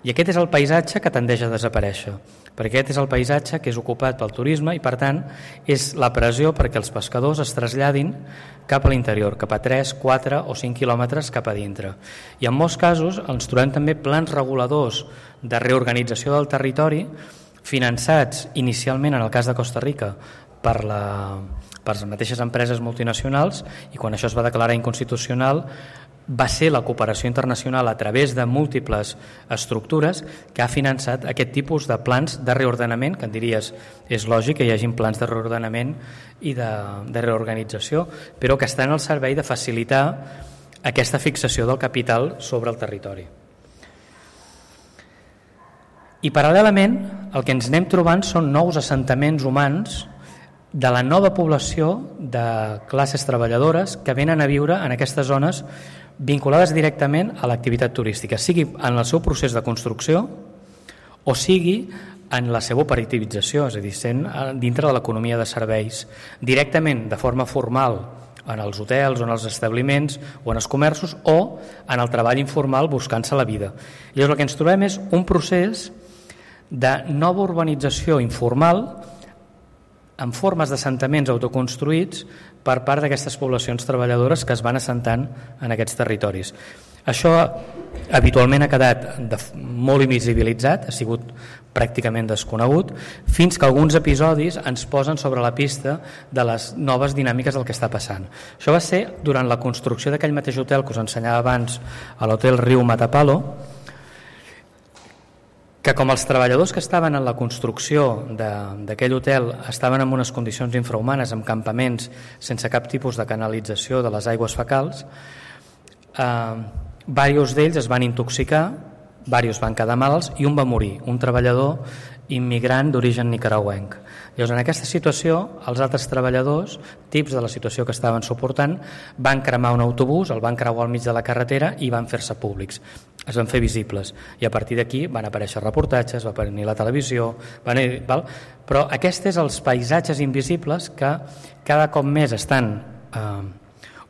i aquest és el paisatge que tendeix a desaparèixer, perquè aquest és el paisatge que és ocupat pel turisme i per tant és la pressió perquè els pescadors es traslladin cap a l'interior, cap a 3, 4 o 5 quilòmetres cap a dintre. I en molts casos ens trobem també plans reguladors de reorganització del territori finançats inicialment, en el cas de Costa Rica, per les mateixes empreses multinacionals, i quan això es va declarar inconstitucional va ser la cooperació internacional a través de múltiples estructures que ha finançat aquest tipus de plans de reordenament, que en diries és lògic que hi hagin plans de reordenament i de reorganització, però que estan al servei de facilitar aquesta fixació del capital sobre el territori. I paral·lelament el que ens anem trobant són nous assentaments humans de la nova població de classes treballadores que venen a viure en aquestes zones vinculades directament a l'activitat turística, sigui en el seu procés de construcció o sigui en la seva operativització, és a dir, sent dintre de l'economia de serveis, directament de forma formal en els hotels o en els establiments o en els comerços, o en el treball informal buscant-se la vida. I llavors el que ens trobem és un procés de nova urbanització informal en formes d'assentaments autoconstruïts per part d'aquestes poblacions treballadores que es van assentant en aquests territoris. Això habitualment ha quedat molt invisibilitzat, ha sigut pràcticament desconegut, fins que alguns episodis ens posen sobre la pista de les noves dinàmiques del que està passant. Això va ser durant la construcció d'aquell mateix hotel que us ensenyava abans, a l'hotel Riu Matapalo, que com els treballadors que estaven en la construcció d'aquell hotel estaven en unes condicions infrahumanes, amb campaments sense cap tipus de canalització de les aigües fecals, diversos d'ells es van intoxicar, diversos van quedar malalts i un va morir, un treballador immigrant d'origen nicaragüenc. Llavors, en aquesta situació, els altres treballadors, tips de la situació que estaven suportant, van cremar un autobús, el van creuar al mig de la carretera i van fer-se públics. Es van fer visibles. I a partir d'aquí van aparèixer reportatges, va venir la televisió, però aquests són els paisatges invisibles que cada cop més estan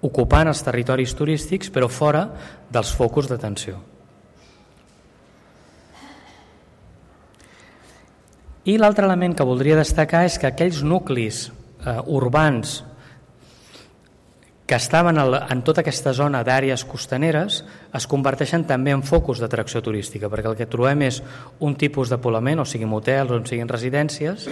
ocupant els territoris turístics, però fora dels focus d'atenció. I l'altre element que voldria destacar és que aquells nuclis urbans que estaven en tota aquesta zona d'àrees costaneres es converteixen també en focus d'atracció turística, perquè el que trobem és un tipus de poblament, o siguin hotels o siguin residències,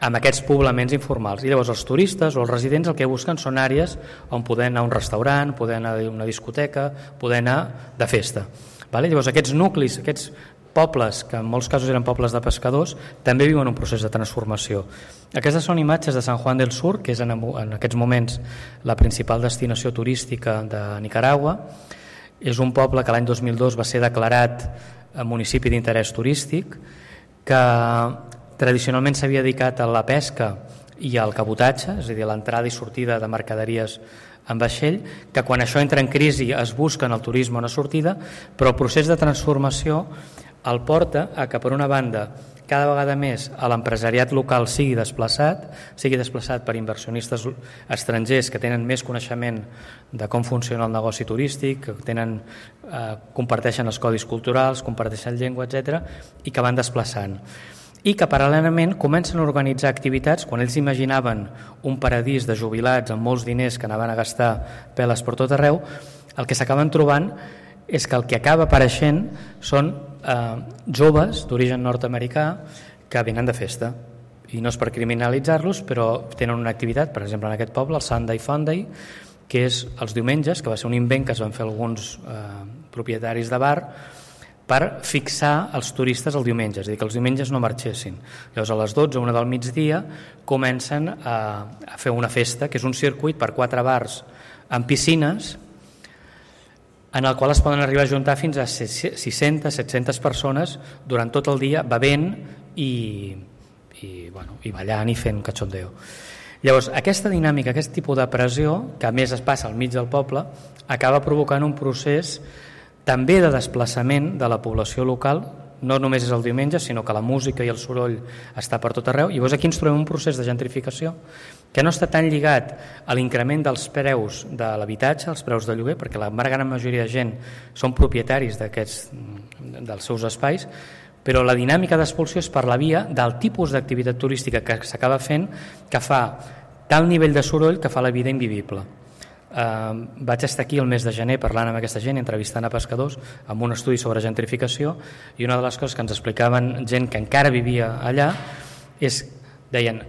amb aquests poblaments informals. I llavors els turistes o els residents el que busquen són àrees on poder anar a un restaurant, poder anar a una discoteca, poder anar de festa. Llavors aquests nuclis, aquests pobles, que en molts casos eren pobles de pescadors, també viuen un procés de transformació. Aquestes són imatges de San Juan del Sur, que és en aquests moments la principal destinació turística de Nicaragua. És un poble que l'any 2002 va ser declarat municipi d'interès turístic, que tradicionalment s'havia dedicat a la pesca i al cabotatge, és a dir, a l'entrada i sortida de mercaderies en vaixell, que quan això entra en crisi es busca en el turisme una sortida, però el procés de transformació el porta a que, per una banda, cada vegada més l'empresariat local sigui desplaçat per inversionistes estrangers que tenen més coneixement de com funciona el negoci turístic, que comparteixen els codis culturals, comparteixen llengua, etc., i que van desplaçant. I que paral·lelament comencen a organitzar activitats. Quan ells imaginaven un paradís de jubilats amb molts diners que anaven a gastar peles per tot arreu, el que s'acaben trobant és que el que acaba apareixent són joves d'origen nord-americà que venen de festa, i no és per criminalitzar-los, però tenen una activitat, per exemple en aquest poble, el Sunday Funday, que és els diumenges, que va ser un invent que es van fer alguns propietaris de bar per fixar els turistes el diumenge, és a dir, que els diumenges no marxessin. Llavors a les 12 o 1 del migdia comencen a fer una festa, que és un circuit per 4 bars amb piscines, en el qual es poden arribar a juntar fins a 600-700 persones durant tot el dia bevent i ballant i fent cachondeo. Llavors, aquesta dinàmica, aquest tipus de pressió, que a més es passa al mig del poble, acaba provocant un procés també de desplaçament de la població local. No només és el diumenge, sinó que la música i el soroll està per tot arreu. I llavors aquí ens trobem un procés de gentrificació que no està tan lligat a l'increment dels preus de l'habitatge, els preus de lloguer, perquè la gran majoria de gent són propietaris dels seus espais, però la dinàmica d'expulsió és per la via del tipus d'activitat turística que s'acaba fent, que fa tal nivell de soroll que fa la vida invivible. Vaig estar aquí el mes de gener parlant amb aquesta gent, entrevistant a pescadors amb un estudi sobre gentrificació, i una de les coses que ens explicaven gent que encara vivia allà és, deien,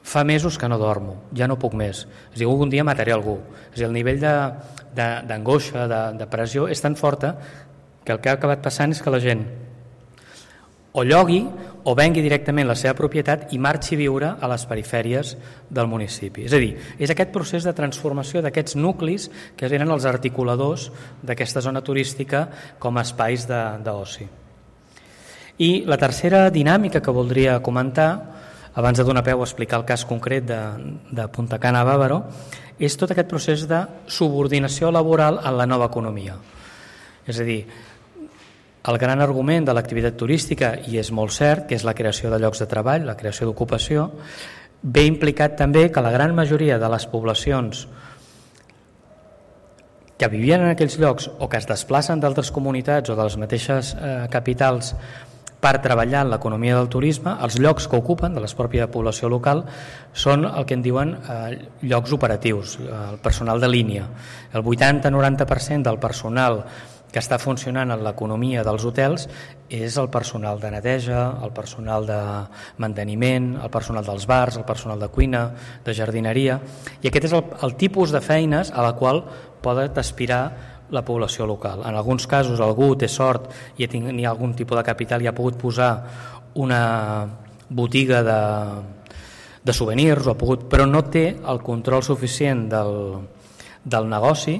fa mesos que no dormo, ja no puc més, és a dir, algun dia mataré algú. És a dir, el nivell d'angoixa, de pressió és tan forta que el que ha acabat passant és que la gent o llogui o vengui directament la seva propietat i marxi a viure a les perifèries del municipi. És a dir, és aquest procés de transformació d'aquests nuclis que eren els articuladors d'aquesta zona turística com a espais d'oci. I la tercera dinàmica que voldria comentar, abans de donar peu a explicar el cas concret de Punta Cana a Bávaro, és tot aquest procés de subordinació laboral en la nova economia. És a dir, el gran argument de l'activitat turística, i és molt cert, que és la creació de llocs de treball, la creació d'ocupació, ve implicat també que la gran majoria de les poblacions que vivien en aquells llocs o que es desplacen d'altres comunitats o de les mateixes capitals per treballar en l'economia del turisme, els llocs que ocupen de la pròpia població local són el que en diuen llocs operatius, el personal de línia. El 80-90% del personal que està funcionant en l'economia dels hotels és el personal de neteja, el personal de manteniment, el personal dels bars, el personal de cuina, de jardineria, i aquest és el tipus de feines a la qual poden aspirar la població local. En alguns casos algú té sort i ha algun tipus de capital i ha pogut posar una botiga de souvenirs, però no té el control suficient del negoci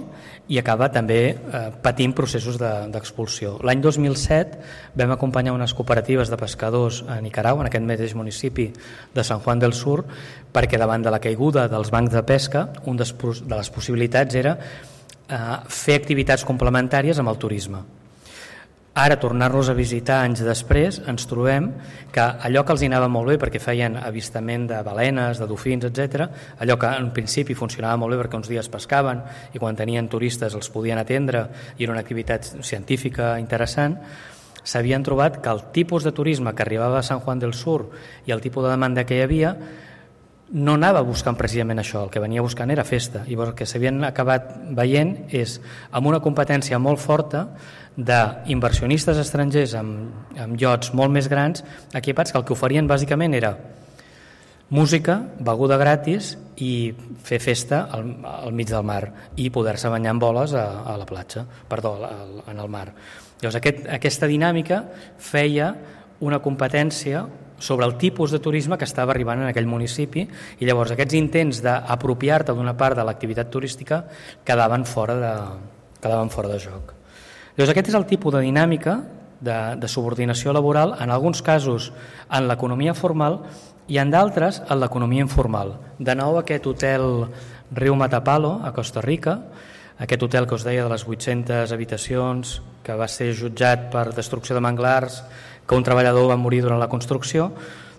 i acaba també patint processos d'expulsió. L'any 2007 vam acompanyar unes cooperatives de pescadors a Nicaragua, en aquest mateix municipi de San Juan del Sur, perquè davant de la caiguda dels bancs de pesca, una de les possibilitats era fer activitats complementàries amb el turisme. Ara, tornar-los a visitar anys després, ens trobem que allò que els anava molt bé perquè feien avistament de balenes, de dofins, etc., allò que en principi funcionava molt bé perquè uns dies pescaven i quan tenien turistes els podien atendre i era una activitat científica interessant, s'havien trobat que el tipus de turisme que arribava a San Juan del Sur i el tipus de demanda que hi havia no anava buscant precisament això, el que venia buscant era festa, i el que s'havien acabat veient és amb una competència molt forta d'inversionistes estrangers amb iots molt més grans equipats, que el que oferien bàsicament era música, beguda gratis i fer festa al mig del mar i poder-se banyar amb boles a la platja, en el mar. Llavors aquesta dinàmica feia una competència sobre el tipus de turisme que estava arribant en aquell municipi, i llavors aquests intents d'apropiar-te d'una part de l'activitat turística quedaven fora de joc. Llavors aquest és el tipus de dinàmica de subordinació laboral, en alguns casos en l'economia formal i en d'altres en l'economia informal. De nou aquest hotel Riu Matapalo a Costa Rica, aquest hotel que us deia de les 800 habitacions, que va ser jutjat per destrucció de manglars, que un treballador va morir durant la construcció,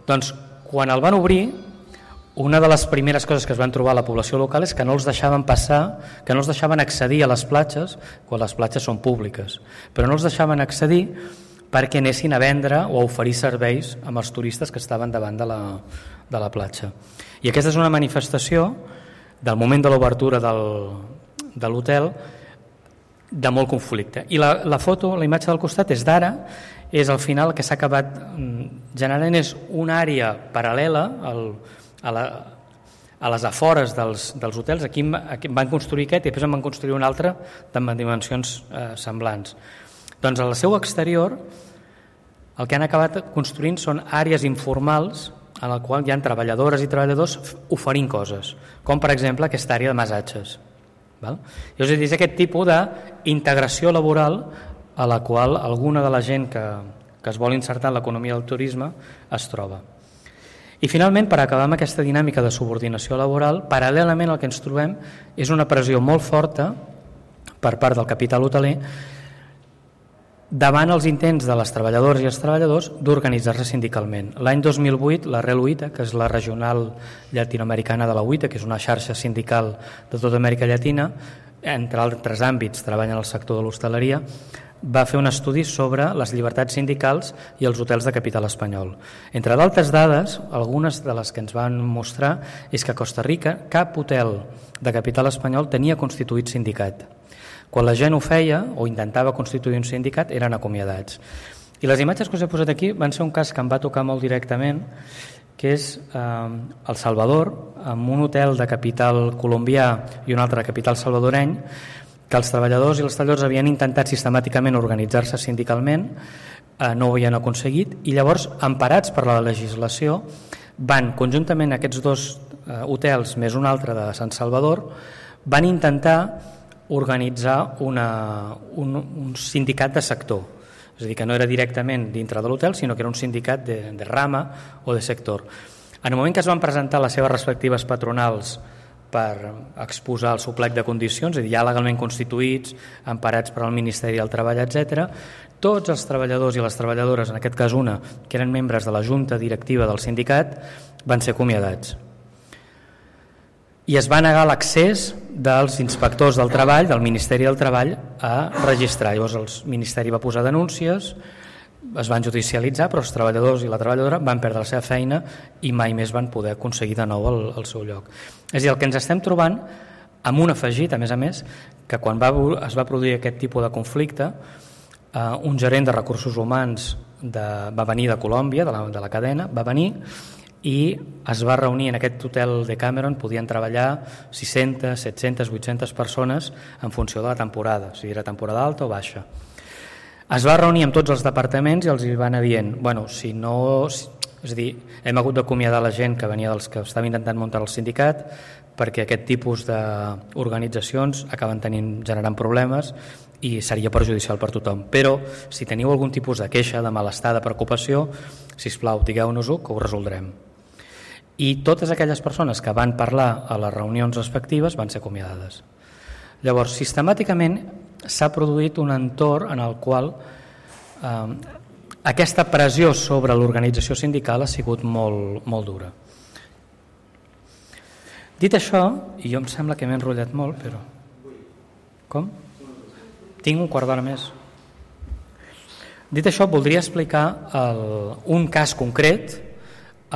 doncs quan el van obrir, una de les primeres coses que es van trobar a la població local és que no els deixaven passar, que no els deixaven accedir a les platges, quan les platges són públiques, però no els deixaven accedir perquè anessin a vendre o a oferir serveis amb els turistes que estaven davant de la platja. I aquesta és una manifestació del moment de l'obertura de l'hotel de molt conflicte. I la foto, la imatge del costat és d'ara, és al final el que s'ha acabat generant és una àrea paral·lela a les afores dels hotels. Aquí van construir aquest i després en van construir un altre de dimensions semblants. Doncs al seu exterior el que han acabat construint són àrees informals en la qual hi ha treballadores i treballadors oferint coses, com per exemple aquesta àrea de massatges. És a dir, és aquest tipus d'integració laboral a la qual alguna de la gent que es vol insertar en l'economia del turisme es troba. I finalment, per acabar amb aquesta dinàmica de subordinació laboral, paral·lelament el que ens trobem és una pressió molt forta per part del capital hoteler davant els intents de les treballadores i els treballadors d'organitzar-se sindicalment. L'any 2008, la REL UITA, que és la regional llatinoamericana de la UITA, que és una xarxa sindical de tota Amèrica Llatina, entre altres àmbits treballa en el sector de l'hostaleria, va fer un estudi sobre les llibertats sindicals i els hotels de capital espanyol. Entre d'altres dades, algunes de les que ens van mostrar és que a Costa Rica cap hotel de capital espanyol tenia constituït sindicat. Quan la gent ho feia o intentava constituir un sindicat eren acomiadats. I les imatges que us he posat aquí van ser un cas que em va tocar molt directament, que és El Salvador, amb un hotel de capital colombià i un altre de capital salvadoreny, que els treballadors i els treballadors havien intentat sistemàticament organitzar-se sindicalment, no ho havien aconseguit, i llavors, emparats per la legislació, van conjuntament aquests dos hotels més un altre de Sant Salvador, van intentar organitzar un sindicat de sector, és a dir, que no era directament dintre de l'hotel, sinó que era un sindicat de rama o de sector. En el moment que es van presentar les seves respectives patronals per exposar el seu plec de condicions, és a dir, ja legalment constituïts, emparats per al Ministeri del Treball, etc. Tots els treballadors i les treballadores, en aquest cas una, que eren membres de la junta directiva del sindicat, van ser acomiadats. I es va negar l'accés dels inspectors del treball, del Ministeri del Treball, a registrar. Llavors el Ministeri va posar denúncies, es van judicialitzar, però els treballadors i la treballadora van perdre la seva feina i mai més van poder aconseguir de nou el seu lloc. És a dir, el que ens estem trobant, amb un afegit, a més, que quan es va produir aquest tipus de conflicte, un gerent de recursos humans va venir de Colòmbia, de la cadena, va venir i es va reunir en aquest hotel de Cameron, podien treballar 600, 700, 800 persones en funció de la temporada, si era temporada alta o baixa. Es va reunir amb tots els departaments i els hi van anar dient, és a dir, hem hagut d'acomiadar la gent que venia dels que estava intentant muntar el sindicat perquè aquest tipus d'organitzacions acaben generant problemes i seria perjudicial per tothom. Però si teniu algun tipus de queixa, de malestar, de preocupació, sisplau, digueu-nos-ho que ho resoldrem. I totes aquelles persones que van parlar a les reunions respectives van ser acomiadades. Llavors, sistemàticament s'ha produït un entorn en el qual aquesta pressió sobre l'organització sindical ha sigut molt dura. Dit això, i jo em sembla que m'he enrotllat molt, però... Com? Tinc un quart d'hora més. Dit això, voldria explicar un cas concret,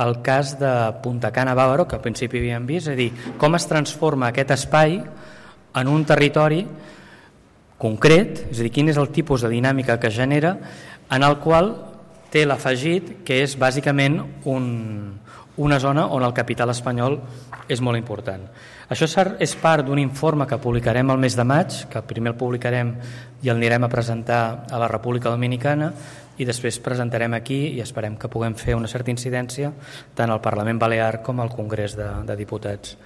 el cas de Punta Cana Bávaro, que al principi havíem vist, és a dir, com es transforma aquest espai en un territori concret, és a dir, quin és el tipus de dinàmica que genera, en el qual té l'afegit que és bàsicament una zona on el capital espanyol és molt important. Això és part d'un informe que publicarem el mes de maig, que primer el publicarem i el anirem a presentar a la República Dominicana i després presentarem aquí i esperem que puguem fer una certa incidència tant al Parlament Balear com al Congrés de Diputats,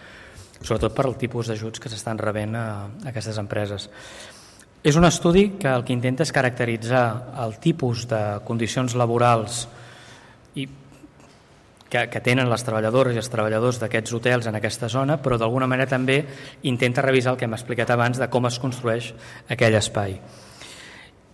sobretot per el tipus d'ajuts que s'estan rebent a aquestes empreses. És un estudi que el que intenta és caracteritzar el tipus de condicions laborals que tenen les treballadores i els treballadors d'aquests hotels en aquesta zona, però d'alguna manera també intenta revisar el que hem explicat abans de com es construeix aquell espai.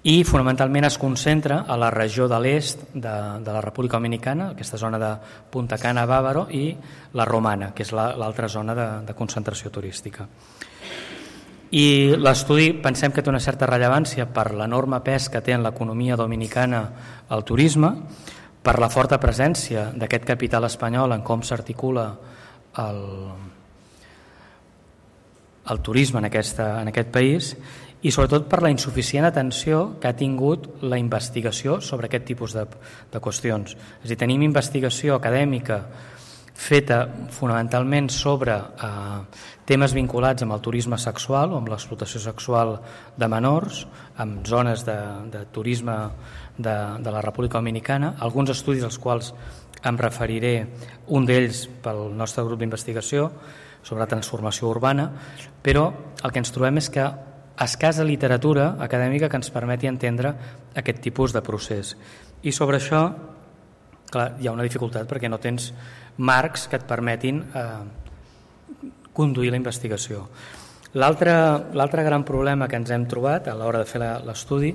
I fonamentalment es concentra a la regió de l'est de la República Dominicana, aquesta zona de Punta Cana, Bávaro, i la Romana, que és l'altra zona de concentració turística. I l'estudi pensem que té una certa rellevància per l'enorme pes que té en l'economia dominicana el turisme, per la forta presència d'aquest capital espanyol en com s'articula el turisme en aquest país i sobretot per la insuficient atenció que ha tingut la investigació sobre aquest tipus de qüestions. És a dir, tenim investigació acadèmica feta fonamentalment sobre temes vinculats amb el turisme sexual o amb l'explotació sexual de menors, amb zones de turisme de la República Dominicana, alguns estudis als quals em referiré, un d'ells pel nostre grup d'investigació sobre transformació urbana, però el que ens trobem és que escassa literatura acadèmica que ens permeti entendre aquest tipus de procés. I sobre això, clar, hi ha una dificultat perquè no tens marcs que et permetin conduir la investigació. L'altre gran problema que ens hem trobat a l'hora de fer l'estudi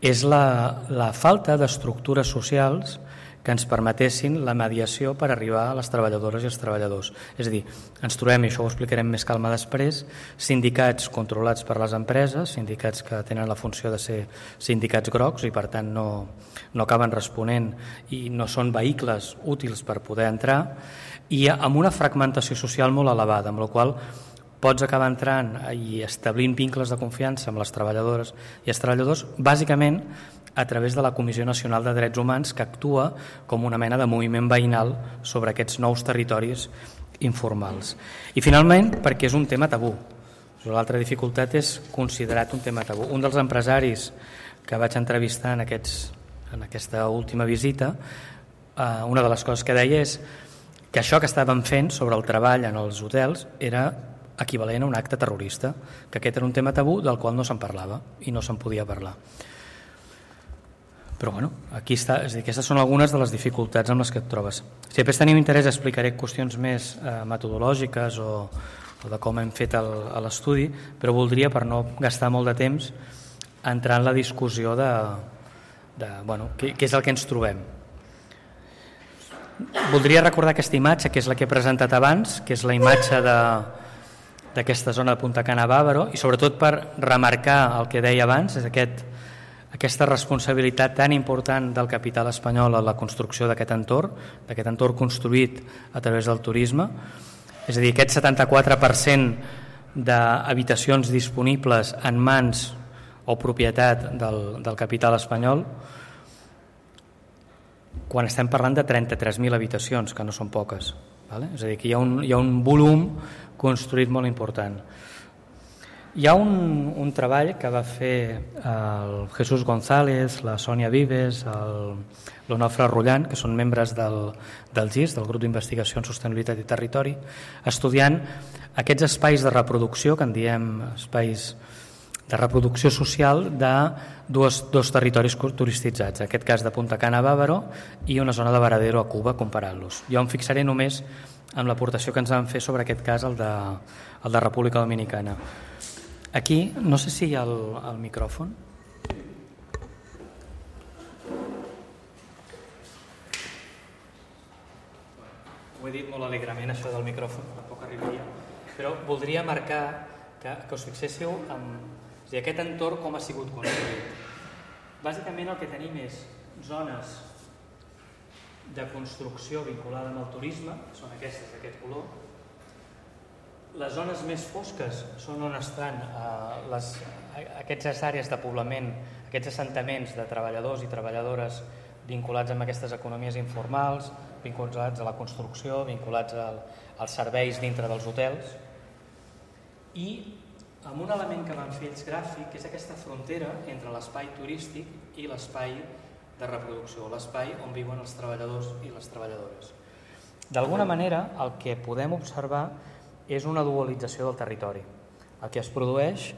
és la falta d'estructures socials que ens permetessin la mediació per arribar a les treballadores i els treballadors. És a dir, ens trobem, i això ho explicarem més calma després, sindicats controlats per les empreses, sindicats que tenen la funció de ser sindicats grocs i per tant no acaben responent i no són vehicles útils per poder entrar, i amb una fragmentació social molt elevada, amb la qual pots acabar entrant i establint vincles de confiança amb les treballadores i els treballadors, bàsicament a través de la Comissió Nacional de Drets Humans, que actua com una mena de moviment veïnal sobre aquests nous territoris informals. I finalment, perquè és un tema tabú. L'altra dificultat és considerat un tema tabú. Un dels empresaris que vaig entrevistar en aquesta última visita, una de les coses que deia és que això que estàvem fent sobre el treball en els hotels era equivalent a un acte terrorista, que aquest era un tema tabú del qual no se'n parlava i no se'n podia parlar. Però bueno, aquí està, és a dir, aquestes són algunes de les dificultats amb les que et trobes. Si després tenim interès explicaré qüestions més metodològiques o o de com hem fet l'estudi, però voldria, per no gastar molt de temps, entrar en la discussió de què és el que ens trobem. Voldria recordar aquesta imatge, que és la que he presentat abans, que és la imatge d'aquesta zona de Punta Cana Bávaro, i sobretot per remarcar el que deia abans, és aquesta responsabilitat tan important del capital espanyol en la construcció d'aquest entorn construït a través del turisme. És a dir, aquest 74% d'habitacions disponibles en mans o propietat del capital espanyol, quan estem parlant de 33.000 habitacions, que no són poques. És a dir, que hi ha un volum construït molt important. Hi ha un treball que va fer el Jesús González, la Sònia Vives, l'Onofre Rullant, que són membres del GIS, del Grup d'Investigació en Sostenibilitat i Territori, estudiant aquests espais de reproducció, que en diem espais de reproducció social, de dos territoris turistitzats, en aquest cas de Punta Cana Bávaro i una zona de Varadero a Cuba, comparant-los. Jo em fixaré només en l'aportació que ens van fer sobre aquest cas, el de República Dominicana. Aquí, no sé si hi ha el micròfon. Ho he dit molt alegrement, això del micròfon, tampoc arribaria. Però voldria marcar que us fixéssiu en aquest entorn com ha sigut construït. Bàsicament el que tenim és zones de construcció vinculada amb el turisme, són aquestes d'aquest color. Les zones més fosques són on estan aquestes àrees de poblament, aquests assentaments de treballadors i treballadores vinculats amb aquestes economies informals, vinculats a la construcció, vinculats als serveis dintre dels hotels, i amb un element que van fer ells gràfic, que és aquesta frontera entre l'espai turístic i l'espai de reproducció, l'espai on viuen els treballadors i les treballadores. D'alguna manera, el que podem observar és una dualització del territori. El que es produeix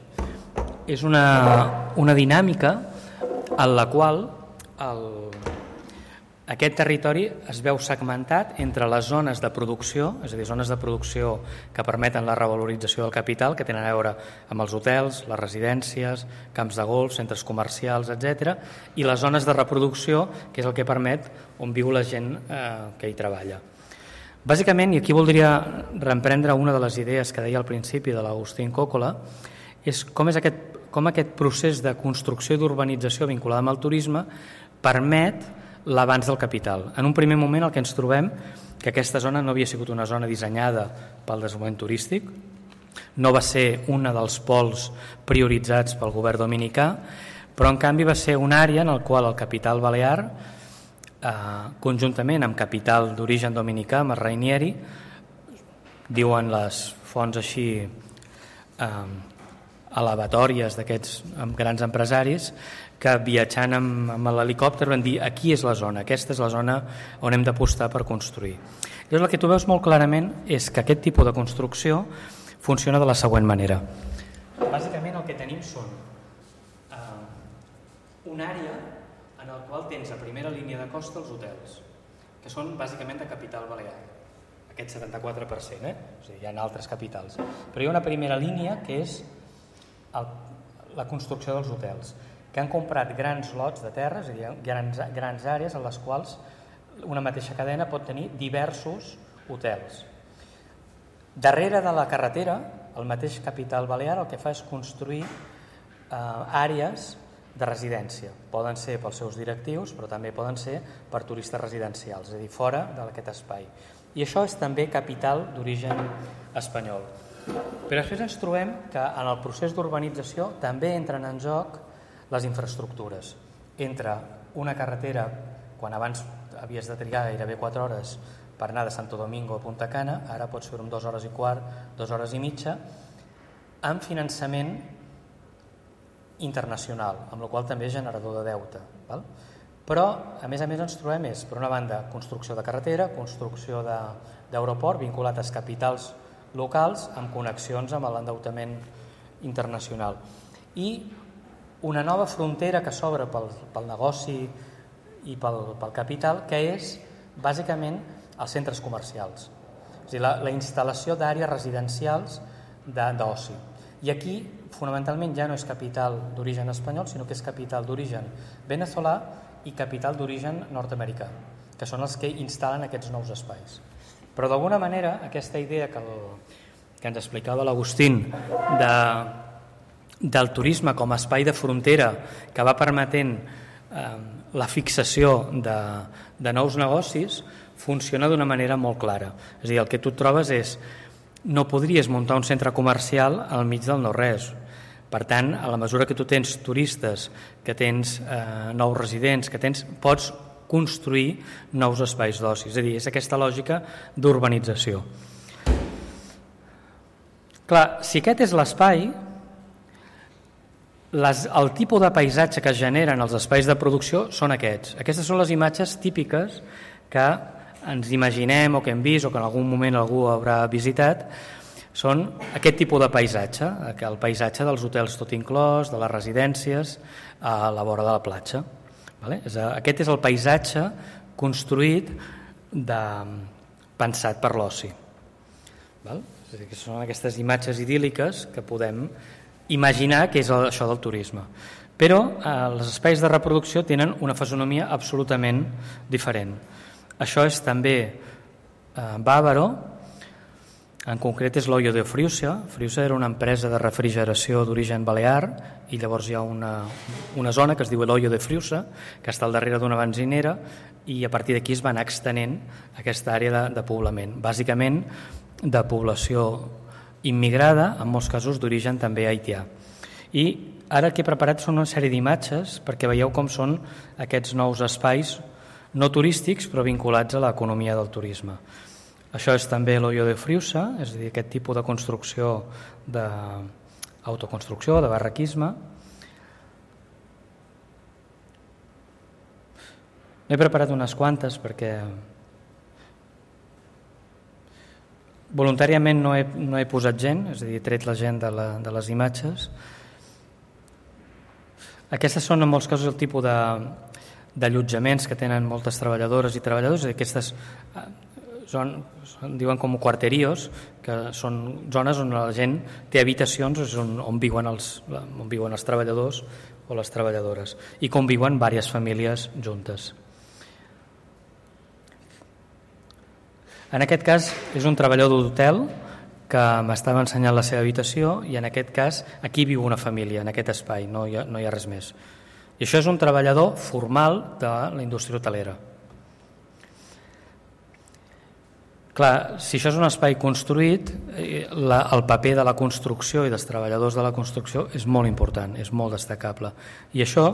és una dinàmica en la qual aquest territori es veu segmentat entre les zones de producció, és a dir, zones de producció que permeten la revalorització del capital, que tenen a veure amb els hotels, les residències, camps de golf, centres comercials, etc., i les zones de reproducció, que és el que permet on viu la gent que hi treballa. Bàsicament, i aquí voldria reemprendre una de les idees que deia al principi de l'Agustín Còcola, és com aquest procés de construcció i d'urbanització vinculada amb el turisme permet l'avanç del capital. En un primer moment el que ens trobem que aquesta zona no havia sigut una zona dissenyada pel desenvolupament turístic, no va ser un dels pols prioritzats pel govern dominicà, però en canvi va ser una àrea en la qual el capital balear, conjuntament amb capital d'origen dominicà, amb el Rainieri, diuen les fonts així elevatòries d'aquests grans empresaris, que viatjant amb l'helicòpter van dir aquí és la zona, aquesta és la zona on hem d'apostar per construir. Llavors el que tu veus molt clarament és que aquest tipus de construcció funciona de la següent manera. Bàsicament el que tenim són una àrea en el qual tens a primera línia de costa els hotels, que són bàsicament de capital balear, aquest 74%, o sigui, hi ha altres capitals. Però hi ha una primera línia que és la construcció dels hotels, que han comprat grans lots de terra, és a dir, grans àrees en les quals una mateixa cadena pot tenir diversos hotels. Darrere de la carretera, el mateix capital balear el que fa és construir àrees de residència. Poden ser pels seus directius, però també poden ser per turistes residencials, és a dir, fora d'aquest espai. I això és també capital d'origen espanyol. Però després ens trobem que en el procés d'urbanització també entren en joc les infraestructures. Entra una carretera, quan abans havies de trigar gairebé 4 hores per anar de Santo Domingo a Punta Cana, ara pots fer-ho en 2 hores i quart, 2 hores i mitja, amb finançament internacional, amb la qual també és generador de deute. Però, a més ens trobem per una banda, construcció de carretera, construcció d'aeroport vinculat als capitals locals amb connexions amb l'endeutament internacional. I una nova frontera que s'obre pel negoci i pel capital, que és bàsicament els centres comercials. És a dir, la instal·lació d'àrees residencials d'oci. I aquí, fonamentalment, ja no és capital d'origen espanyol, sinó que és capital d'origen venezolà i capital d'origen nord-americà, que són els que instal·len aquests nous espais. Però d'alguna manera aquesta idea que ens explicava l'Agustín del turisme com a espai de frontera que va permetent la fixació de nous negocis funciona d'una manera molt clara. És a dir, el que tu et trobes és no podries muntar un centre comercial al mig del no-res. Per tant, a la mesura que tu tens turistes, que tens nous residents, pots construir nous espais d'oci. És a dir, és aquesta lògica d'urbanització. Clar, si aquest és l'espai, el tipus de paisatge que es generen els espais de producció són aquests. Aquestes són les imatges típiques que ens imaginem o que hem vist o que en algun moment algú haurà visitat. Són aquest tipus de paisatge, el paisatge dels hotels tot inclòs, de les residències a la vora de la platja. Aquest és el paisatge construït pensat per l'oci. És a dir, que són aquestes imatges idíl·liques que podem imaginar que és això del turisme. Però els espais de reproducció tenen una fisonomia absolutament diferent. Això és també Bávaro, en concret és l'Hoyo de Friusa. Friusa era una empresa de refrigeració d'origen balear i llavors hi ha una zona que es diu l'Hoyo de Friusa, que està al darrere d'una benzinera, i a partir d'aquí es va anar extenent aquesta àrea de poblament, bàsicament de població immigrada, en molts casos d'origen també haitià. I ara el que he preparat són una sèrie d'imatges perquè veieu com són aquests nous espais no turístics però vinculats a l'economia del turisme. Això és també l'Hoyo de Friusa, és a dir, aquest tipus de construcció d'autoconstrucció, de barraquisme. N'he preparat unes quantes perquè voluntàriament no he posat gent, és a dir, he tret la gent de les imatges. Aquestes són en molts casos el tipus d'allotjaments que tenen moltes treballadores i treballadors. Aquestes diuen com quarterios, que són zones on la gent té habitacions on viuen els treballadors o les treballadores i conviuen diverses famílies juntes. En aquest cas és un treballador d'hotel que m'estava ensenyant la seva habitació i en aquest cas aquí viu una família, en aquest espai, no hi ha res més. I això és un treballador formal de la indústria hotelera. Clar, si això és un espai construït, el paper de la construcció i dels treballadors de la construcció és molt important, és molt destacable. I això,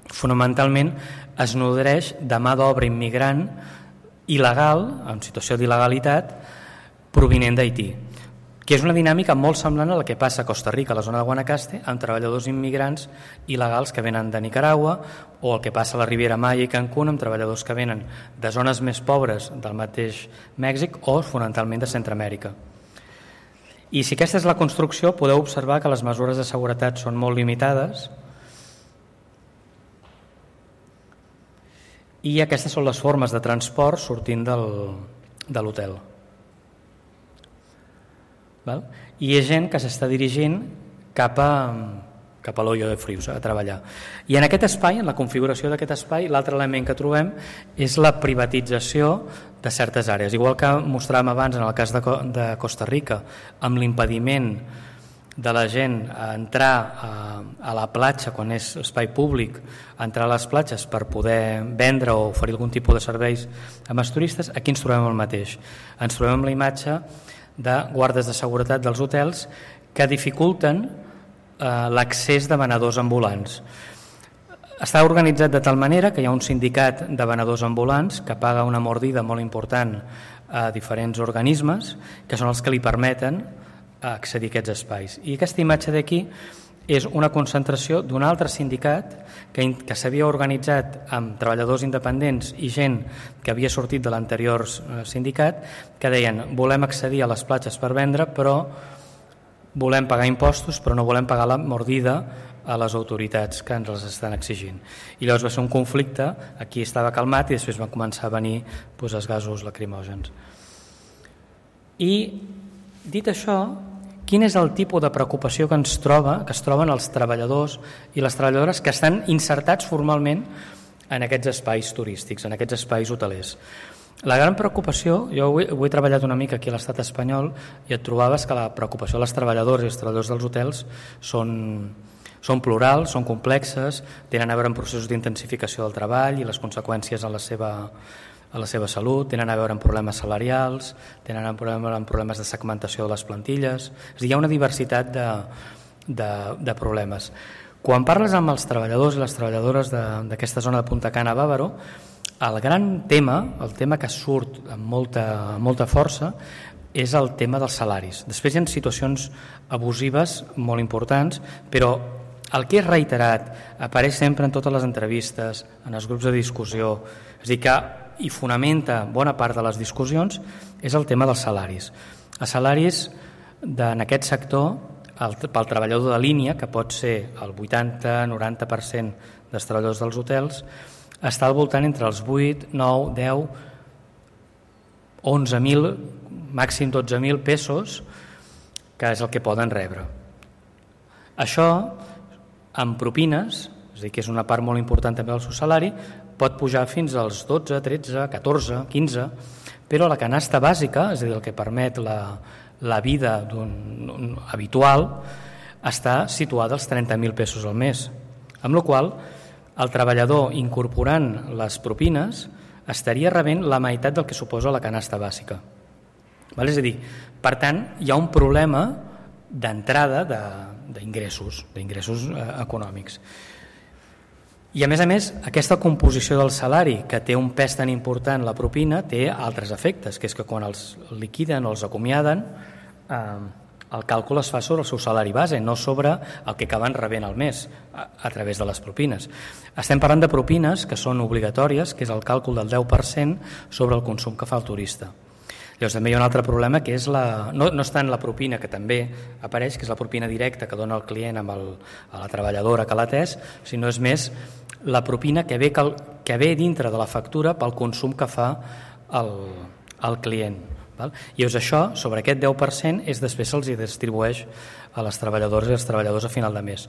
fonamentalment, es nodreix de mà d'obra immigrant il·legal, en situació d'il·legalitat, provinent d'Haití, que és una dinàmica molt semblant a la que passa a Costa Rica, a la zona de Guanacaste, amb treballadors immigrants il·legals que venen de Nicaragua, o el que passa a la Riviera Maya i Cancún amb treballadors que venen de zones més pobres del mateix Mèxic o fonamentalment de Centroamèrica. I si aquesta és la construcció, podeu observar que les mesures de seguretat són molt limitades i aquestes són les formes de transport sortint de l'hotel. I hi ha gent que s'està dirigint cap a l'Hoyo de Friusa a treballar. I en aquest espai, en la configuració d'aquest espai, l'altre element que trobem és la privatització de certes àrees. Igual que mostràvem abans en el cas de Costa Rica, amb l'impediment de la gent a entrar a la platja quan és espai públic, a entrar a les platges per poder vendre o oferir algun tipus de serveis amb els turistes, aquí ens trobem el mateix. Ens trobem amb la imatge de guardes de seguretat dels hotels que dificulten l'accés de venedors ambulants. Està organitzat de tal manera que hi ha un sindicat de venedors ambulants que paga una mordida molt important a diferents organismes que són els que li permeten accedir a aquests espais. I aquesta imatge d'aquí és una concentració d'un altre sindicat que s'havia organitzat amb treballadors independents i gent que havia sortit de l'anterior sindicat que deien volem accedir a les platges per vendre però volem pagar impostos però no volem pagar la mordida a les autoritats que ens les estan exigint. I llavors va ser un conflicte, aquí estava calmat i després van començar a venir els gasos lacrimògens. I dit això, quin és el tipus de preocupació que es troben els treballadors i les treballadores que estan insertats formalment en aquests espais turístics, en aquests espais hotelers. La gran preocupació, jo ho he treballat una mica aquí a l'estat espanyol i et trobaves que la preocupació dels treballadors i els treballadors dels hotels són plurals, són complexes, tenen a veure amb processos d'intensificació del treball i les conseqüències a la seva salut, tenen a veure amb problemes salarials, tenen a veure amb problemes de segmentació de les plantilles. És a dir, hi ha una diversitat de problemes. Quan parles amb els treballadors i les treballadores d'aquesta zona de Punta Cana a Bàvaro, el gran tema, el tema que surt amb molta força, és el tema dels salaris. Després hi ha situacions abusives molt importants, però el que és reiterat, apareix sempre en totes les entrevistes, en els grups de discussió, és a dir, que hi fonamenta bona part de les discussions, és el tema dels salaris. Els salaris en aquest sector, pel treballador de línia, que pot ser el 80-90% dels treballadors dels hotels, està al voltant entre els 8, 9, 10, 11.000, màxim 12.000 pesos, que és el que poden rebre. Això, amb propines, és a dir, que és una part molt important també del seu salari, pot pujar fins als 12, 13, 14, 15, però la canasta bàsica, és a dir, el que permet la vida habitual, està situada als 30.000 pesos al mes, amb la qual cosa el treballador incorporant les propines estaria rebent la meitat del que suposa la canasta bàsica. És a dir, per tant, hi ha un problema d'entrada d'ingressos econòmics. I a més, aquesta composició del salari, que té un pes tan important la propina, té altres efectes, que és que quan els liquiden o els acomiaden, el càlcul es fa sobre el seu salari base, no sobre el que acaben rebent al mes a través de les propines. Estem parlant de propines que són obligatòries, que és el càlcul del 10% sobre el consum que fa el turista. Llavors també hi ha un altre problema, que és no és tant la propina, que també apareix, que és la propina directa que dona el client a la treballadora que l'ha atès, sinó és més la propina que ve dintre de la factura pel consum que fa el client. I llavors això, sobre aquest 10%, després se'ls distribueix a les treballadores i els treballadors a final de mes,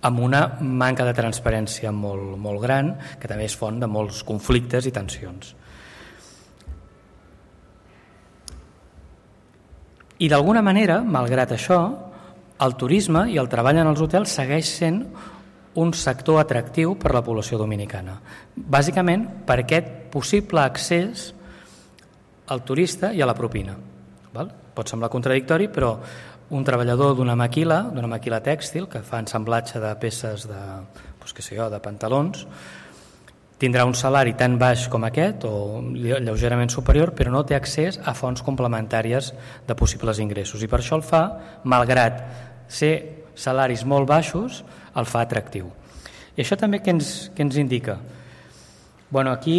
amb una manca de transparència molt gran, que també és font de molts conflictes i tensions. I d'alguna manera, malgrat això, el turisme i el treball en els hotels segueix sent un sector atractiu per a la població dominicana, bàsicament per aquest possible accés al turista i a la propina. Pot semblar contradictori, però un treballador d'una maquila tèxtil que fa ensamblatge de peces de pantalons tindrà un salari tan baix com aquest o lleugerament superior, però no té accés a fonts complementàries de possibles ingressos, i per això el fa, malgrat ser salaris molt baixos, el fa atractiu. I això també què ens indica? Aquí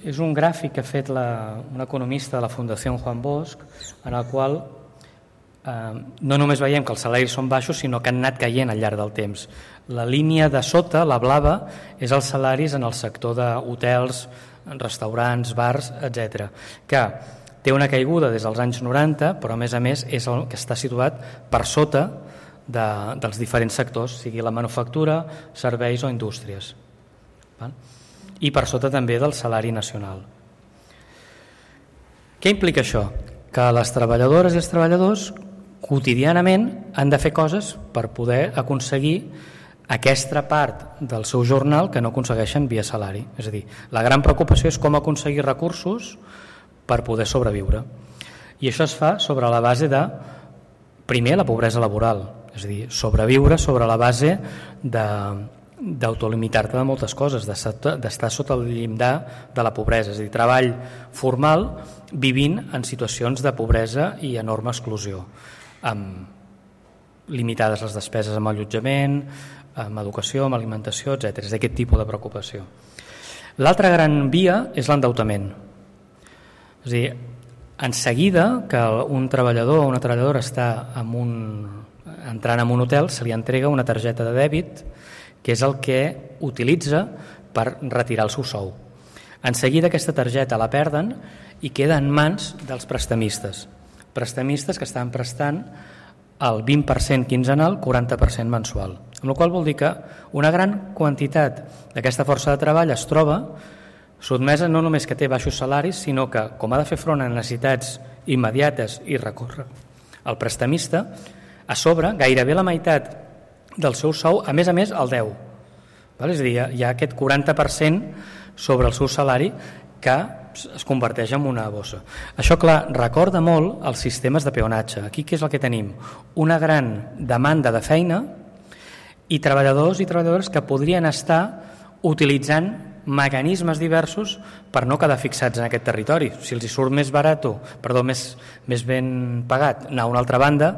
és un gràfic que ha fet un economista de la Fundació Juan Bosch, en el qual no només veiem que els salaris són baixos, sinó que han anat caient al llarg del temps. La línia de sota, la blava, és els salaris en el sector d'hotels, restaurants, bars, etc., que té una caiguda des dels anys 90, però a més és el que està situat per sota dels diferents sectors, sigui la manufactura, serveis o indústries. I per sota també del salari nacional. Què implica això? Que les treballadores i els treballadors quotidianament han de fer coses per poder aconseguir aquesta part del seu jornal que no aconsegueixen via salari. És a dir, la gran preocupació és com aconseguir recursos per poder sobreviure. I això es fa sobre la base de, primer, la pobresa laboral, és a dir, sobreviure sobre la base d'autolimitar-te de moltes coses, d'estar sota el llindar de la pobresa, és a dir, treball formal vivint en situacions de pobresa i enorme exclusió, amb limitades les despeses amb allotjament, amb educació, amb alimentació, etc. És d'aquest tipus de preocupació. L'altra gran via és l'endeutament. És a dir, en seguida que un treballador o una treballadora està entrant en un hotel, se li entrega una targeta de dèbit que és el que utilitza per retirar el seu sou. En seguida aquesta targeta la perden i queda en mans dels prestamistes que estan prestant el 20% quinzenal, 40% mensual. Amb la qual vol dir que una gran quantitat d'aquesta força de treball es troba sotmesa no només que té baixos salaris, sinó que, com ha de fer front a necessitats immediates i recórrer al prestamista, a sobre, gairebé la meitat del seu sou, a més, el 10. És a dir, hi ha aquest 40% sobre el seu salari que es converteix en una bossa. Això, clar, recorda molt els sistemes de peonatge. Aquí què és el que tenim? Una gran demanda de feina i treballadors i treballadores que podrien estar utilitzant mecanismes diversos per no quedar fixats en aquest territori. Si els hi surt més ben pagat anar a una altra banda,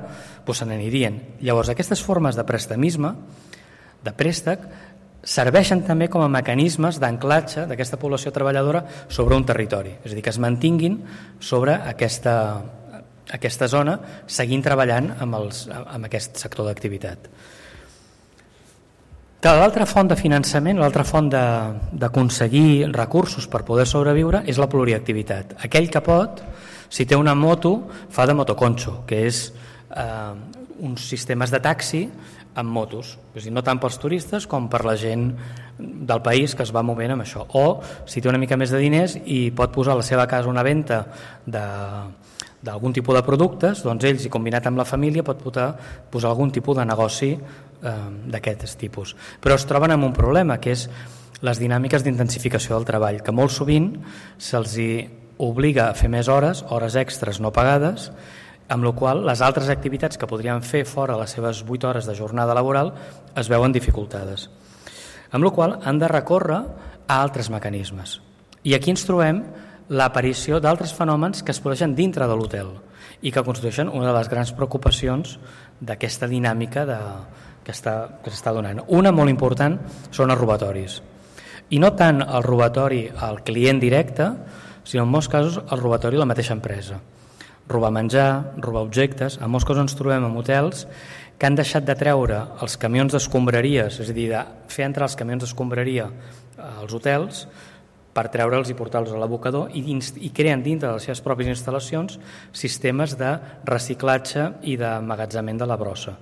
doncs se n'anirien. Llavors, aquestes formes de prestamisme, de préstec, serveixen també com a mecanismes d'anclatge d'aquesta població treballadora sobre un territori. És a dir, que es mantinguin sobre aquesta zona seguint treballant amb aquest sector d'activitat. L'altra font de finançament, l'altra font d'aconseguir recursos per poder sobreviure és la pluriactivitat. Aquell que pot, si té una moto, fa de motoconxo, que és uns sistemes de taxi amb motos, és a dir, no tant pels turistes com per la gent del país que es va movent amb això. O si té una mica més de diners i pot posar a la seva casa una venda d'algun tipus de productes, doncs ells, i combinat amb la família, pot posar algun tipus de negoci d'aquest tipus. Però es troben amb un problema, que és les dinàmiques d'intensificació del treball, que molt sovint se'ls obliga a fer més hores extres no pagades, amb la qual les altres activitats que podrien fer fora les seves 8 hores de jornada laboral es veuen dificultades. Amb la qual han de recórrer a altres mecanismes. I aquí ens trobem l'aparició d'altres fenòmens que es produeixen dintre de l'hotel i que constitueixen una de les grans preocupacions d'aquesta dinàmica que s'està donant. Una molt important són els robatoris. I no tant el robatori al client directe, sinó en molts casos el robatori a la mateixa empresa. Robar menjar, robar objectes. En molts casos ens trobem en hotels que han deixat de treure els camions d'escombraries, és a dir, de fer entrar els camions d'escombraria als hotels per treure'ls i portar-los a l'abocador i creen dintre de les seves pròpies instal·lacions sistemes de reciclatge i d'emmagatzemament de la brossa.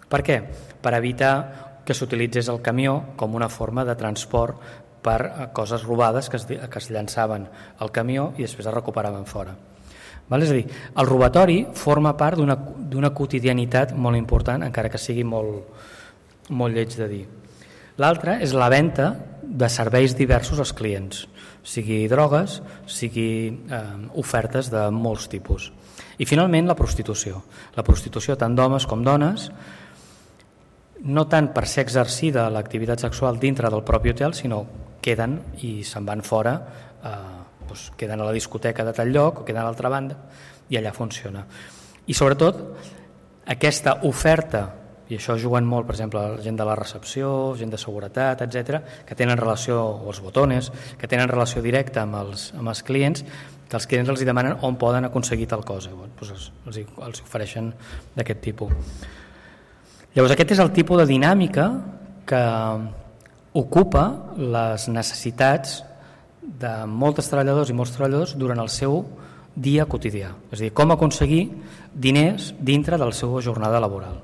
Per què? Per evitar que s'utilitzés el camió com una forma de transport per coses robades que es llançaven al camió i després es recuperaven fora. És a dir, el robatori forma part d'una quotidianitat molt important, encara que sigui molt lleig de dir. L'altre és la venda de serveis diversos als clients, sigui drogues, sigui ofertes de molts tipus. I finalment la prostitució. La prostitució tant d'homes com dones, no tant per ser exercida l'activitat sexual dintre del propi hotel, sinó queden i se'n van fora, queden a la discoteca de tal lloc o queden a l'altra banda i allà funciona. I sobretot aquesta oferta, i això juguen molt, per exemple, la gent de la recepció, gent de seguretat, etc., que tenen relació, o els botones, que tenen relació directa amb els clients, que els clients els demanen on poden aconseguir tal cosa, els ofereixen d'aquest tipus. Llavors aquest és el tipus de dinàmica que ocupa les necessitats de molts treballadors i molts treballadors durant el seu dia quotidià, és a dir, com aconseguir diners dintre de la seva jornada laboral.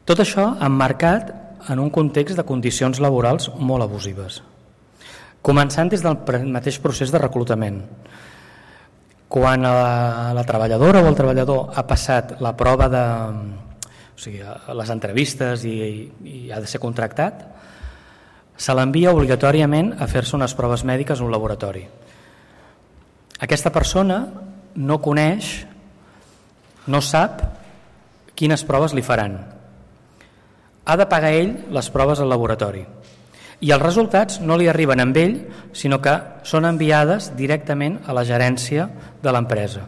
Tot això emmarcat en un context de condicions laborals molt abusives, començant des del mateix procés de reclutament. Quan la treballadora o el treballador ha passat la prova les entrevistes i ha de ser contractat, se l'envia obligatòriament a fer-se unes proves mèdiques a un laboratori. Aquesta persona no coneix, no sap quines proves li faran. Ha de pagar ell les proves al laboratori. I els resultats no li arriben amb ell, sinó que són enviades directament a la gerència de l'empresa.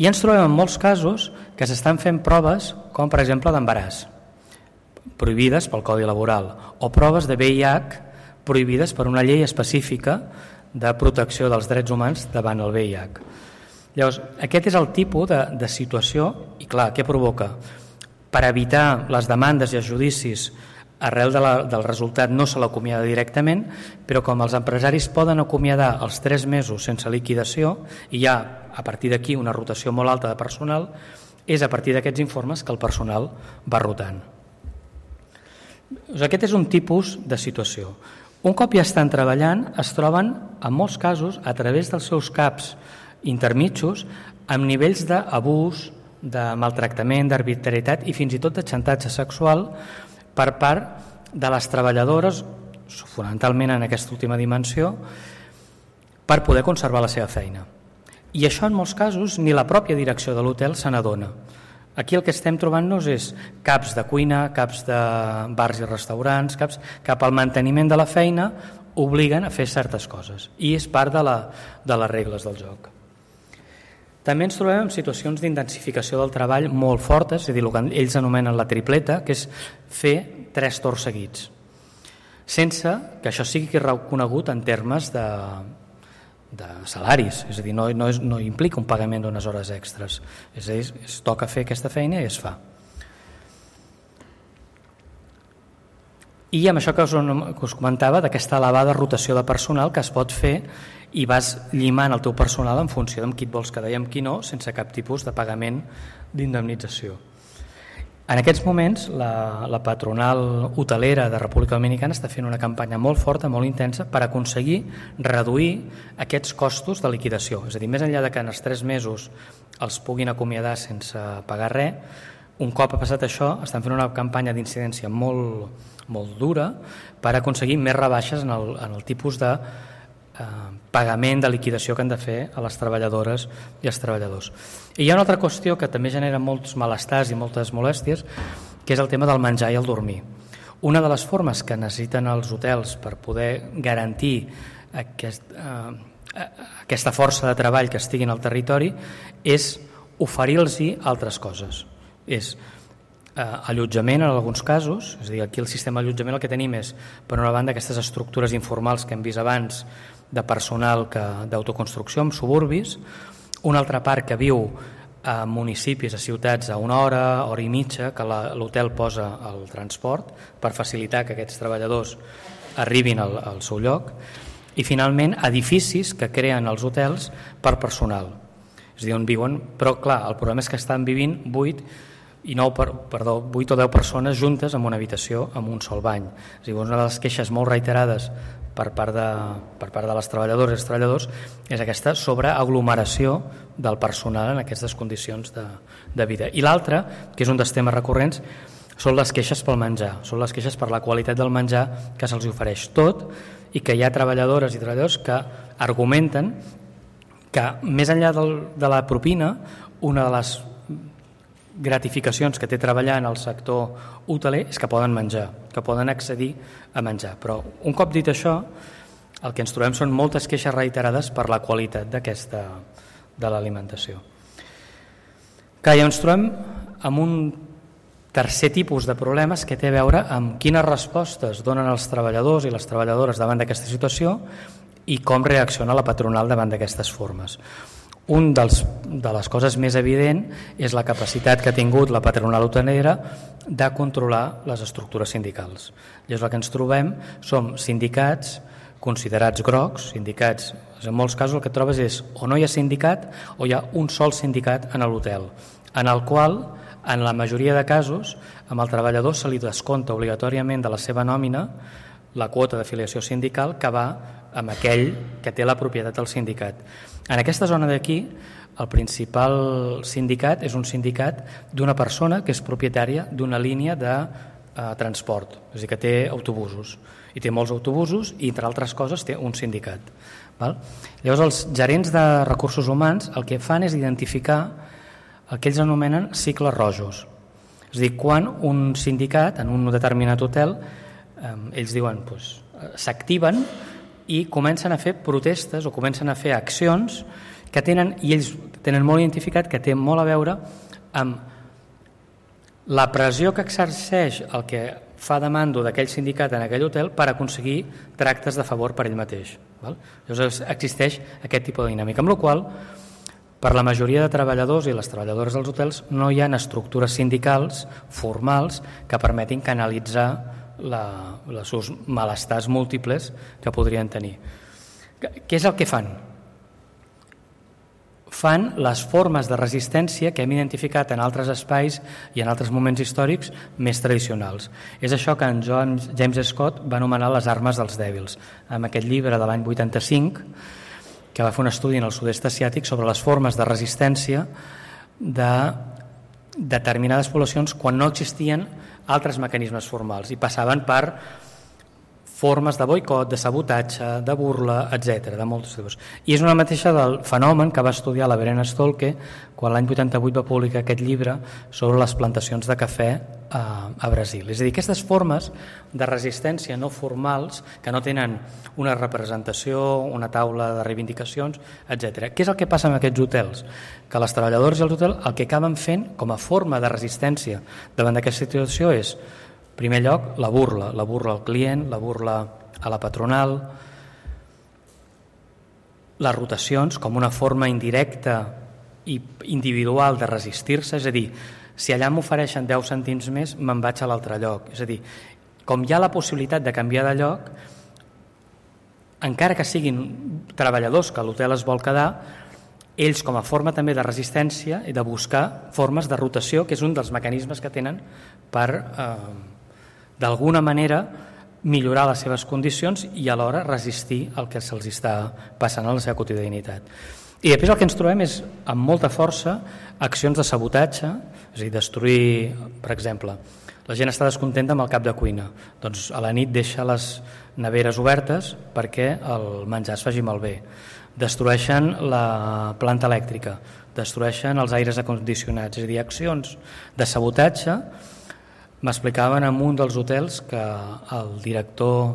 I ens trobem en molts casos que s'estan fent proves, com per exemple d'embaràs, prohibides pel Codi Laboral, o proves de VIH prohibides per una llei específica de protecció dels drets humans davant el VIH. Llavors, aquest és el tipus de situació, i clar, què provoca? Per evitar les demandes i els judicis, arrel del resultat no se l'acomiada directament, però com els empresaris poden acomiadar els 3 mesos sense liquidació, i hi ha a partir d'aquí una rotació molt alta de personal, és a partir d'aquests informes que el personal va rotant. Aquest és un tipus de situació. Un cop ja estan treballant, es troben, en molts casos, a través dels seus caps intermitjos, amb nivells d'abús, de maltractament, d'arbitrarietat i fins i tot de xantatge sexual per part de les treballadores, fonamentalment en aquesta última dimensió, per poder conservar la seva feina. I això en molts casos ni la pròpia direcció de l'hotel se n'adona. Aquí el que estem trobant-nos és caps de cuina, caps de bars i restaurants, caps cap al manteniment de la feina obliguen a fer certes coses i és part de les regles del joc. També ens trobem en situacions d'intensificació del treball molt fortes, és a dir, el que ells anomenen la tripleta, que és fer 3 torns seguits, sense que això sigui reconegut en termes de salaris, és a dir, no implica un pagament d'unes hores extres, és a dir, es toca fer aquesta feina i es fa. I amb això que us comentava, d'aquesta elevada rotació de personal que es pot fer i vas llimant el teu personal en funció d'amb qui et vols quedar i amb qui no, sense cap tipus de pagament d'indemnització. En aquests moments, la patronal hotelera de República Dominicana està fent una campanya molt forta, molt intensa, per aconseguir reduir aquests costos de liquidació. És a dir, més enllà de que en els 3 mesos els puguin acomiadar sense pagar res, un cop ha passat això, estan fent una campanya d'incidència molt dura per aconseguir més rebaixes en el tipus de pagament de liquidació que han de fer a les treballadores i els treballadors. I hi ha una altra qüestió que també genera molts malestars i moltes molèsties, que és el tema del menjar i el dormir. Una de les formes que necessiten els hotels per poder garantir aquesta força de treball que estigui al territori és oferir-los altres coses. És allotjament en alguns casos, és a dir, aquí el sistema d'allotjament el que tenim és, per una banda, aquestes estructures informals que hem vist abans de personal d'autoconstrucció en suburbis, una altra part que viu a municipis, a ciutats, a 1 hora, hora i mitja, que l'hotel posa el transport per facilitar que aquests treballadors arribin al seu lloc, i finalment edificis que creen els hotels per personal, és a dir, on viuen, però clar, el problema és que estan vivint 8 o 10 persones juntes en una habitació amb un sol bany. És a dir, una de les queixes molt reiterades per part de les treballadores i els treballadors és aquesta sobreaglomeració del personal en aquestes condicions de vida. I l'altre, que és un dels temes recurrents, són les queixes pel menjar, són les queixes per la qualitat del menjar que se'ls ofereix tot i que hi ha treballadores i treballadors que argumenten que més enllà de la propina, una de les gratificacions que té treballar en el sector hoteler és que poden menjar, que poden accedir a menjar. Però un cop dit això, el que ens trobem són moltes queixes reiterades per la qualitat de l'alimentació. Que ja ens trobem amb un tercer tipus de problemes que té a veure amb quines respostes donen els treballadors i les treballadores davant d'aquesta situació i com reacciona la patronal davant d'aquestes formes. Un de les coses més evident és la capacitat que ha tingut la patronal hotelera de controlar les estructures sindicals. Llavors el que ens trobem són sindicats considerats grocs, sindicats, en molts casos el que trobes és o no hi ha sindicat o hi ha un sol sindicat en l'hotel, en el qual, en la majoria de casos, amb el treballador se li descompta obligatòriament de la seva nòmina la quota d'afiliació sindical que va amb aquell que té la propietat del sindicat. En aquesta zona d'aquí, el principal sindicat és un sindicat d'una persona que és propietària d'una línia de transport, és a dir, que té autobusos, i té molts autobusos i, entre altres coses, té un sindicat. Llavors, els gerents de recursos humans el que fan és identificar el que ells anomenen cicles rojos. És a dir, quan un sindicat, en un determinat hotel, ells diuen, s'activen i comencen a fer protestes o comencen a fer accions que tenen, i ells tenen molt identificat, que té molt a veure amb la pressió que exerceix el que fa de mando d'aquell sindicat en aquell hotel per aconseguir tractes de favor per ell mateix. Llavors existeix aquest tipus de dinàmica, amb la qual per la majoria de treballadors i les treballadores dels hotels no hi ha estructures sindicals formals que permetin canalitzar els seus malestars múltiples que podrien tenir. Què és el que fan? fan les formes de resistència que hem identificat en altres espais i en altres moments històrics més tradicionals. És això que en James Scott va anomenar les armes dels dèbils, amb aquest llibre de l'any 85, que va fer un estudi en el sud-est asiàtic sobre les formes de resistència de determinades poblacions quan no existien altres mecanismes formals i passaven per formes de boicot, de sabotatge, de burla, etc., de molts tipus. I és una mateixa del fenomen que va estudiar la Verena Stolke quan l'any 88 va publicar aquest llibre sobre les plantacions de cafè a Brasil. És a dir, aquestes formes de resistència no formals que no tenen una representació, una taula de reivindicacions, etc. Què és el que passa amb aquests hotels? Que les treballadores dels hotels el que acaben fent com a forma de resistència davant d'aquesta situació és, en primer lloc, la burla al client, la burla a la patronal, les rotacions com una forma indirecta i individual de resistir-se, és a dir, si allà m'ofereixen 10 cèntims més, me'n vaig a l'altre lloc. És a dir, com hi ha la possibilitat de canviar de lloc, encara que siguin treballadors que l'hotel es vol quedar, ells com a forma també de resistència i de buscar formes de rotació, que és un dels mecanismes que tenen per, d'alguna manera, millorar les seves condicions i alhora resistir el que se'ls està passant a la seva quotidianitat. I després el que ens trobem és, amb molta força, accions de sabotatge, és a dir, destruir, per exemple, la gent està descontenta amb el cap de cuina, doncs a la nit deixa les neveres obertes perquè el menjar es faci malbé. Destrueixen la planta elèctrica, destrueixen els aires acondicionats, és a dir, accions de sabotatge. M'explicaven en un dels hotels que el director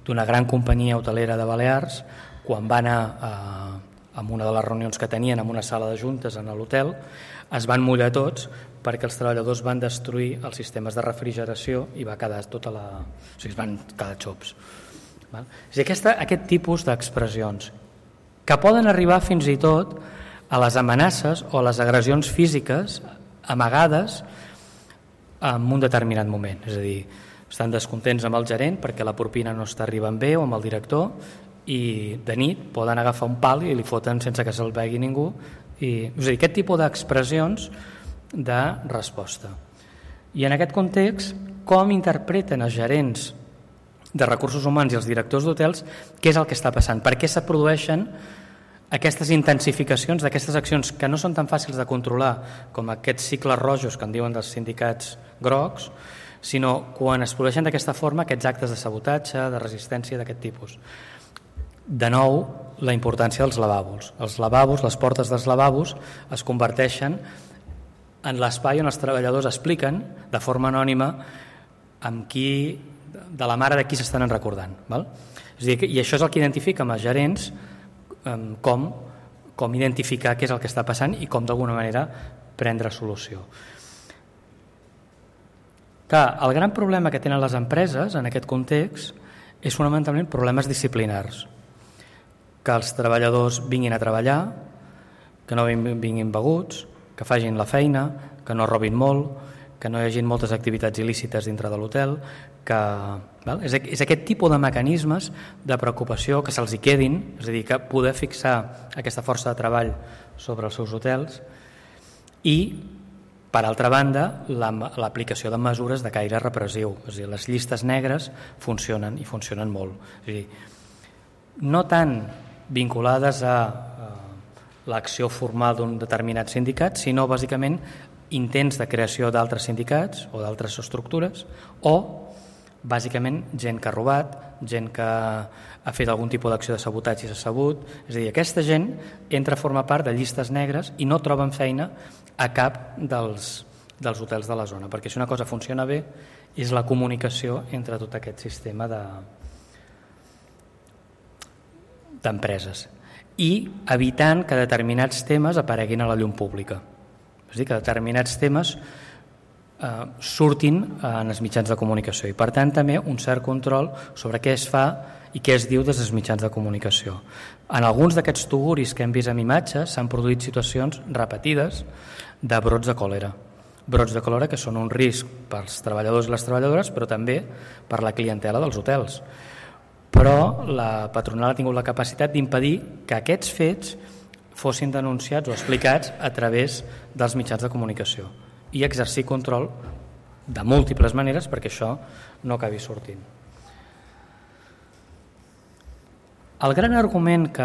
d'una gran companyia hotelera de Balears, quan va anar en una de les reunions que tenien en una sala de juntes en l'hotel, es van mullar tots perquè els treballadors van destruir els sistemes de refrigeració i va quedar tota la... O sigui, es van quedar xops. És a dir, aquest tipus d'expressions que poden arribar fins i tot a les amenaces o a les agressions físiques amagades en un determinat moment. És a dir, estan descontents amb el gerent perquè la propina no està arribant bé o amb el director i de nit poden agafar un pal i li foten sense que se'l vegi ningú. És a dir, aquest tipus d'expressions de resposta. I en aquest context, com interpreten els gerents de recursos humans i els directors d'hotels què és el que està passant? Per què se produeixen aquestes intensificacions d'aquestes accions que no són tan fàcils de controlar com aquests cicles rojos que en diuen dels sindicats grocs, sinó quan es produeixen d'aquesta forma aquests actes de sabotatge, de resistència d'aquest tipus. De nou, la importància dels lavabos. Els lavabos, les portes dels lavabos es converteixen en l'espai on els treballadors expliquen de forma anònima amb qui, de la mare de qui s'estan recordant. Val? És a dir, i això és el que identifica amb els gerents com identificar què és el que està passant i com d'alguna manera prendre solució. Clar, el gran problema que tenen les empreses en aquest context és fonamentalment problemes disciplinars. Que els treballadors vinguin a treballar, que no vinguin beguts, que facin la feina, que no robin molt, que no hi hagi moltes activitats il·lícites dintre de l'hotel, que és aquest tipus de mecanismes de preocupació que se'ls hi quedin, és a dir, que poder fixar aquesta força de treball sobre els seus hotels i, per altra banda, l'aplicació de mesures de caire repressiu. És a dir, les llistes negres funcionen i funcionen molt. És a dir, no tant vinculades a l'acció formal d'un determinat sindicat, sinó bàsicament intents de creació d'altres sindicats o d'altres estructures o bàsicament gent que ha robat, gent que ha fet algun tipus d'acció de sabotatge i s'ha sabut. És a dir, aquesta gent entra a formar part de llistes negres i no troben feina a cap dels hotels de la zona, perquè si una cosa funciona bé és la comunicació entre tot aquest sistema d'empreses i evitant que determinats temes apareguin a la llum pública. És a dir, que determinats temes surtin en els mitjans de comunicació i per tant també un cert control sobre què es fa i què es diu des dels mitjans de comunicació. En alguns d'aquests tuguris que hem vist en imatges s'han produït situacions repetides de brots de còlera. Brots de còlera que són un risc pels treballadors i les treballadores però també per la clientela dels hotels. Però la patronal ha tingut la capacitat d'impedir que aquests fets fossin denunciats o explicats a través dels mitjans de comunicació i exercir control de múltiples maneres perquè això no acabi sortint. El gran argument que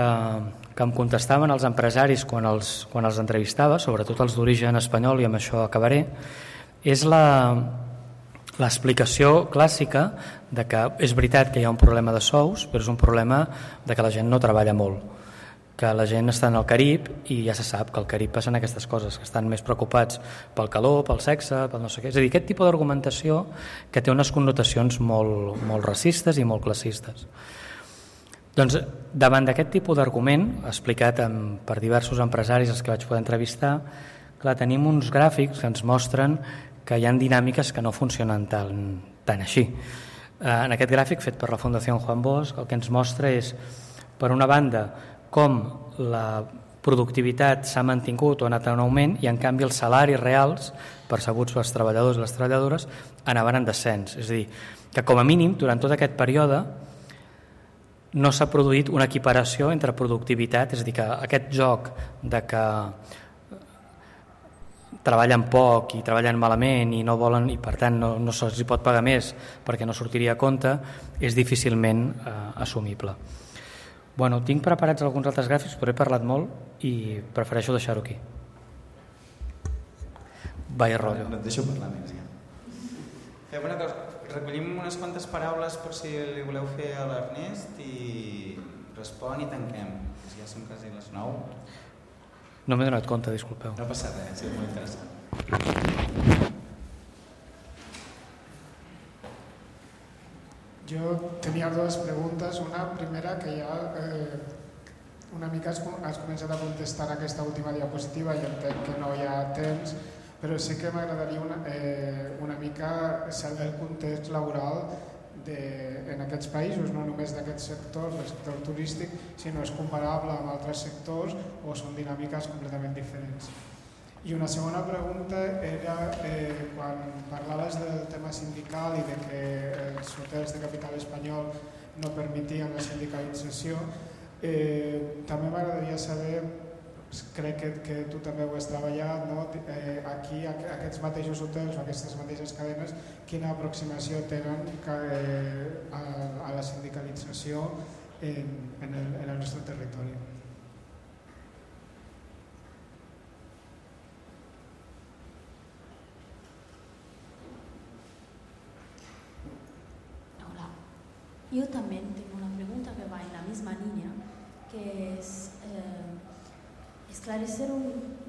em contestaven els empresaris quan els entrevistava, sobretot els d'origen espanyol, i amb això acabaré, és l'explicació clàssica de que és veritat que hi ha un problema de sous, però és un problema de que la gent no treballa molt, que la gent està en el Carib i ja se sap que al Carib passen aquestes coses, que estan més preocupats pel calor, pel sexe, pel no sé què. És a dir, aquest tipus d'argumentació que té unes connotacions molt racistes i molt classistes. Doncs davant d'aquest tipus d'argument, explicat per diversos empresaris als que vaig poder entrevistar, clar, tenim uns gràfics que ens mostren que hi ha dinàmiques que no funcionen tan així. En aquest gràfic fet per la Fundació Juan Bosch el que ens mostra és, per una banda, com la productivitat s'ha mantingut o ha anat en augment i en canvi els salaris reals percebuts pels treballadors i les treballadores anaven en descens. És a dir, que com a mínim durant tot aquest període no s'ha produït una equiparació entre productivitat, és a dir, que aquest joc de que treballen poc i treballen malament i no volen i per tant no se'ls pot pagar més perquè no sortiria a compte és difícilment assumible. Bueno, tinc preparats alguns altres gràfics, però he parlat molt i prefereixo deixar-ho aquí. Vaya rotllo. No et deixo parlar més, ja. Fem una cosa, recollim unes quantes paraules per si li voleu fer a l'Ernest i respon i tanquem. Ja són quasi les 9. No m'he donat compte, disculpeu. No passa res, ha sigut molt interessant. Jo tenia dues preguntes. Una primera, que ja una mica has començat a contestar aquesta última diapositiva i entenc que no hi ha temps, però sí que m'agradaria una mica saber el context laboral en aquests països, no només d'aquests sectors, del sector turístic, sinó és comparable amb altres sectors o són dinàmiques completament diferents. I una segona pregunta era quan parlaves del tema sindical i de que els hotels de capital espanyol no permetien la sindicalització, també m'agradaria saber, crec que tu també ho has treballat, no? Aquí aquests mateixos hotels o aquestes mateixes cadenes, quina aproximació tenen a la sindicalització en el nostre territori. Yo también tengo una pregunta que va en la misma línea, que es esclarecer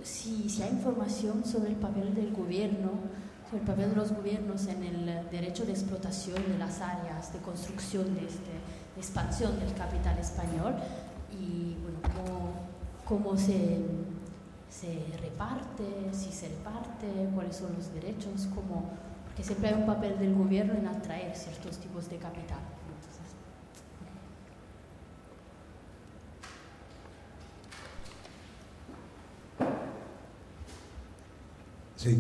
si hay información sobre el papel del gobierno, sobre el papel de los gobiernos en el derecho de explotación de las áreas de construcción de expansión del capital español y bueno, cómo se reparte, si se reparte, cuáles son los derechos, porque siempre hay un papel del gobierno en atraer ciertos tipos de capital. Sí,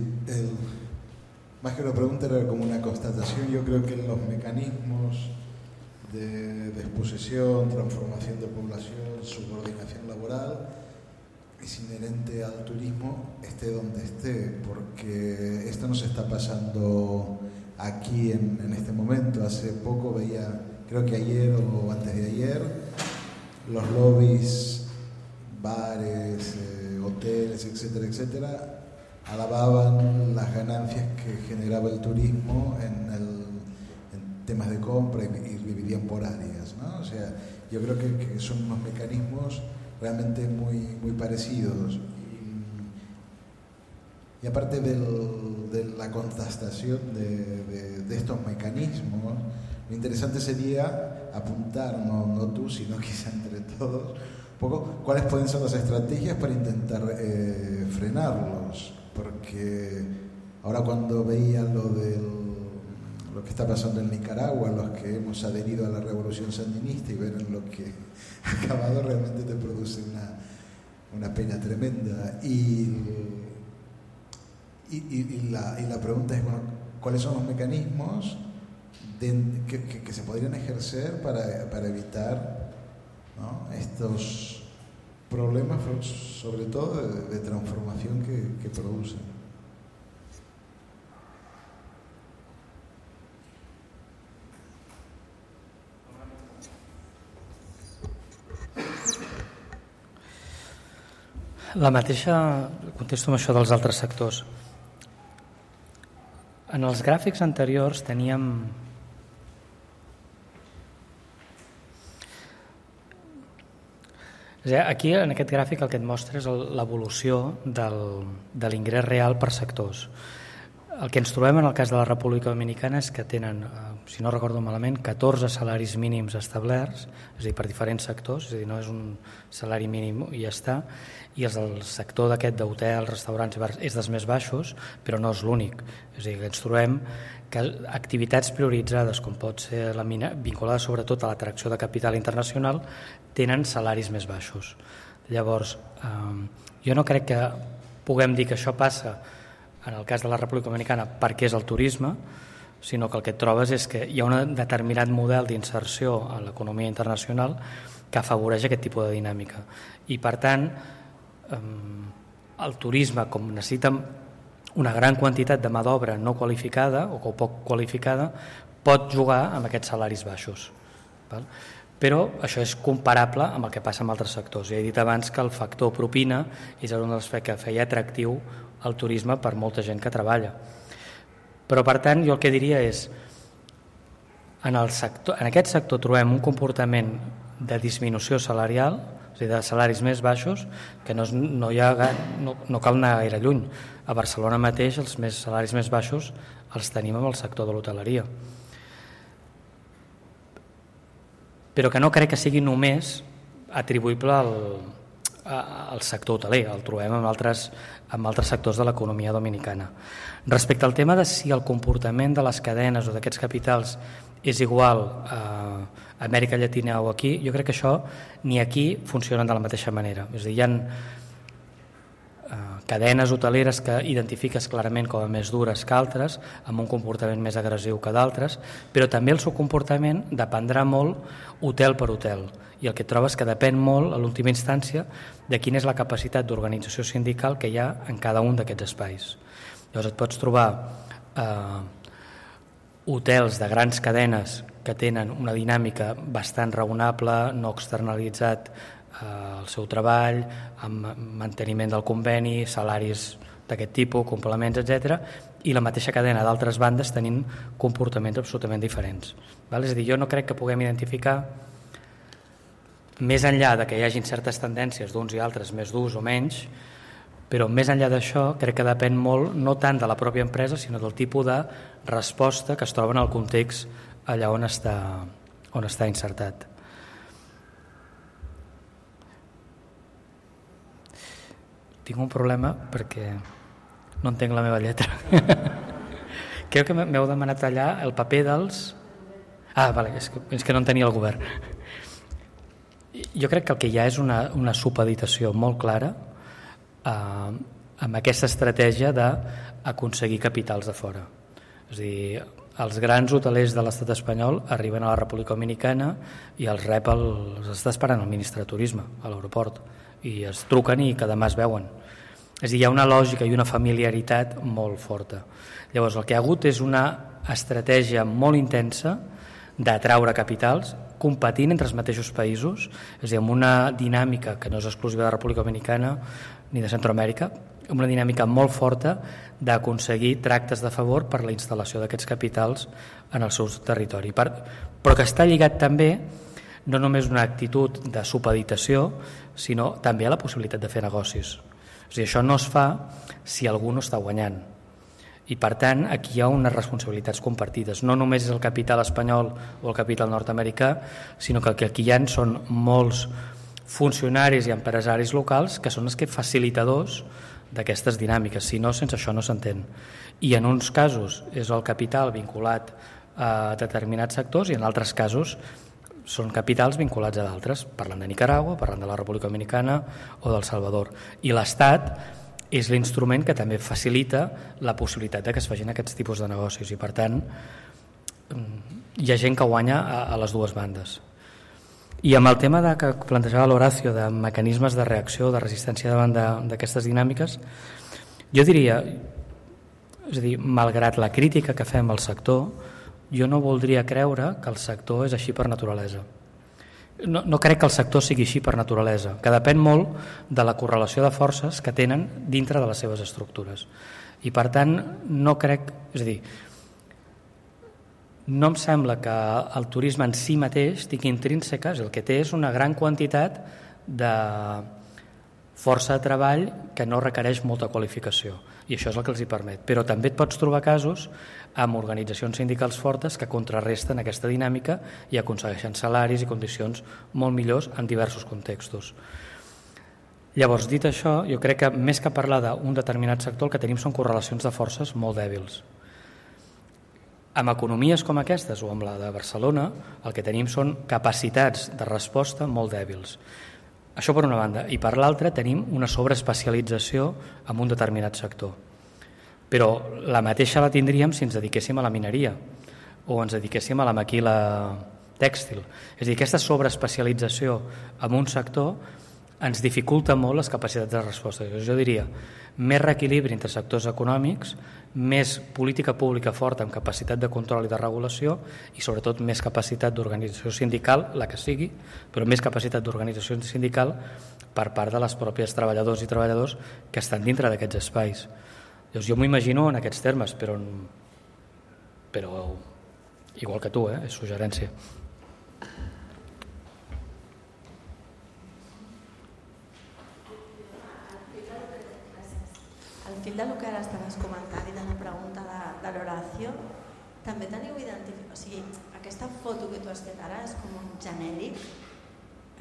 más que una pregunta era como una constatación. Yo creo que los mecanismos de exposición, transformación de población, subordinación laboral es inherente al turismo, esté donde esté, porque esto nos está pasando aquí en este momento. Hace poco veía, creo que ayer o antes de ayer, los lobbies, bares, hoteles, etcétera, etcétera, alababan las ganancias que generaba el turismo en temas de compra y dividían por áreas, ¿no? O sea, yo creo que son unos mecanismos realmente muy parecidos. Y aparte de la contrastación de estos mecanismos, lo interesante sería apuntar, no tú, sino quizá entre todos, un poco cuáles pueden ser las estrategias para intentar frenarlos. Porque ahora cuando veía lo que está pasando en Nicaragua, los que hemos adherido a la revolución sandinista y ver en lo que ha acabado, realmente te produce una pena tremenda. Y la pregunta es, bueno, ¿cuáles son los mecanismos que se podrían ejercer para evitar, ¿no?, problemas, sobre todo de transformación que producen. La mateixa, contesto amb això dels altres sectors. En els gràfics anteriors teníem aquí en aquest gràfic el que et mostra és l'evolució de l'ingrés real per sectors. El que ens trobem en el cas de la República Dominicana és que tenen, si no recordo malament, 14 salaris mínims establerts, és a dir, per diferents sectors, és a dir, no és un salari mínim i ja està, i el sector d'aquest d'hotels, restaurants i bars és dels més baixos, però no és l'únic. És a dir, que ens trobem que activitats prioritzades, com pot ser la mina, vinculades sobretot a l'atracció de capital internacional, tenen salaris més baixos. Llavors, jo no crec que puguem dir que això passa en el cas de la República Dominicana perquè és el turisme, sinó que el que et trobes és que hi ha un determinat model d'inserció en l'economia internacional que afavoreix aquest tipus de dinàmica. I per tant, el turisme, com necessita una gran quantitat de mà d'obra no qualificada o poc qualificada, pot jugar amb aquests salaris baixos. Però això és comparable amb el que passa en altres sectors. Ja he dit abans que el factor propina és un dels que feia atractiu el turisme per molta gent que treballa. Però per tant jo el que diria és en aquest sector trobem un comportament de disminució salarial, és a dir, de salaris més baixos, que no cal anar gaire lluny. A Barcelona mateix els salaris més baixos els tenim en el sector de l'hoteleria. Però que no crec que sigui només atribuïble al sector hoteler, el trobem en altres sectors de l'economia dominicana. Respecte al tema de si el comportament de les cadenes o d'aquests capitals és igual a Amèrica Llatina o aquí, jo crec que això ni aquí funcionen de la mateixa manera. És a dir, hi ha cadenes hoteleres que identifiques clarament com a més dures que altres, amb un comportament més agressiu que d'altres, però també el seu comportament dependrà molt hotel per hotel. I el que trobes que depèn molt, a l'última instància, de quina és la capacitat d'organització sindical que hi ha en cada un d'aquests espais. Llavors et pots trobar hotels de grans cadenes que tenen una dinàmica bastant raonable, no externalitzat el seu treball, amb manteniment del conveni, salaris d'aquest tipus, complements, etc. I la mateixa cadena d'altres bandes tenint comportaments absolutament diferents. És a dir, jo no crec que puguem identificar, més enllà de que hi hagin certes tendències d'uns i altres més durs o menys, però més enllà d'això crec que depèn molt no tant de la pròpia empresa sinó del tipus de resposta que es troba en el context allà on està insertat. Tinc un problema perquè no entenc la meva lletra. Crec que m'heu demanat allà el paper dels... vale, és que no en tenia el govern. Jo crec que el que hi ha és una supeditació molt clara amb aquesta estratègia d'aconseguir capitals de fora. És a dir, els grans hotelers de l'estat espanyol arriben a la República Dominicana i els està esperant el ministre de Turisme a l'aeroport i es truquen i cada mà es veuen. És a dir, hi ha una lògica i una familiaritat molt forta. Llavors el que hi ha hagut és una estratègia molt intensa d'atraure capitals competint entre els mateixos països, és a dir, amb una dinàmica que no és exclusiva de la República Dominicana ni de Centroamèrica, una dinàmica molt forta d'aconseguir tractes de favor per la instal·lació d'aquests capitals en el seu territori. Però que està lligat també no només una actitud de supeditació, sinó també a la possibilitat de fer negocis. És a dir, això no es fa si algú no està guanyant. I per tant, aquí hi ha unes responsabilitats compartides. No només és el capital espanyol o el capital nord-americà, sinó que el que aquí hi ha són molts funcionaris i empresaris locals que són els que facilitadors d'aquestes dinàmiques, si no, sense això no s'entén. I en uns casos és el capital vinculat a determinats sectors i en altres casos són capitals vinculats a d'altres. Parlant de Nicaragua, parlant de la República Dominicana o del Salvador. I l'Estat és l'instrument que també facilita la possibilitat que es facin aquests tipus de negocis i per tant hi ha gent que guanya a les dues bandes. I amb el tema que plantejava l'Horacio de mecanismes de reacció, de resistència davant d'aquestes dinàmiques, jo diria, és a dir, malgrat la crítica que fem al sector, jo no voldria creure que el sector és així per naturalesa. No crec que el sector sigui així per naturalesa, que depèn molt de la correlació de forces que tenen dintre de les seves estructures. I per tant, no crec, és a dir, no em sembla que el turisme en si mateix tingui intrínseques, el que té és una gran quantitat de força de treball que no requereix molta qualificació, i això és el que els hi permet. Però també et pots trobar casos amb organitzacions sindicals fortes que contrarresten aquesta dinàmica i aconsegueixen salaris i condicions molt millors en diversos contextos. Llavors, dit això, jo crec que més que parlar d'un determinat sector, el que tenim són correlacions de forces molt dèbils. Amb economies com aquestes o amb la de Barcelona, el que tenim són capacitats de resposta molt dèbils. Això per una banda. I per l'altra tenim una sobreespecialització en un determinat sector. Però la mateixa la tindríem si ens dediquéssim a la mineria o ens dediquéssim a la maquila tèxtil. És a dir, aquesta sobreespecialització en un sector ens dificulta molt les capacitats de resposta. Jo diria, més reequilibri entre sectors econòmics, més política pública forta amb capacitat de control i de regulació i sobretot més capacitat d'organització sindical, la que sigui, però més capacitat d'organització sindical per part de les pròpies treballadors i treballadors que estan dintre d'aquests espais. Llavors, jo m'ho imagino en aquests termes, però igual que tu, és suggerència. Al fil del que ara estaves comentant i de la pregunta de l'Horacio, també teniu identificat, o sigui, aquesta foto que tu has fet ara és com un genèric,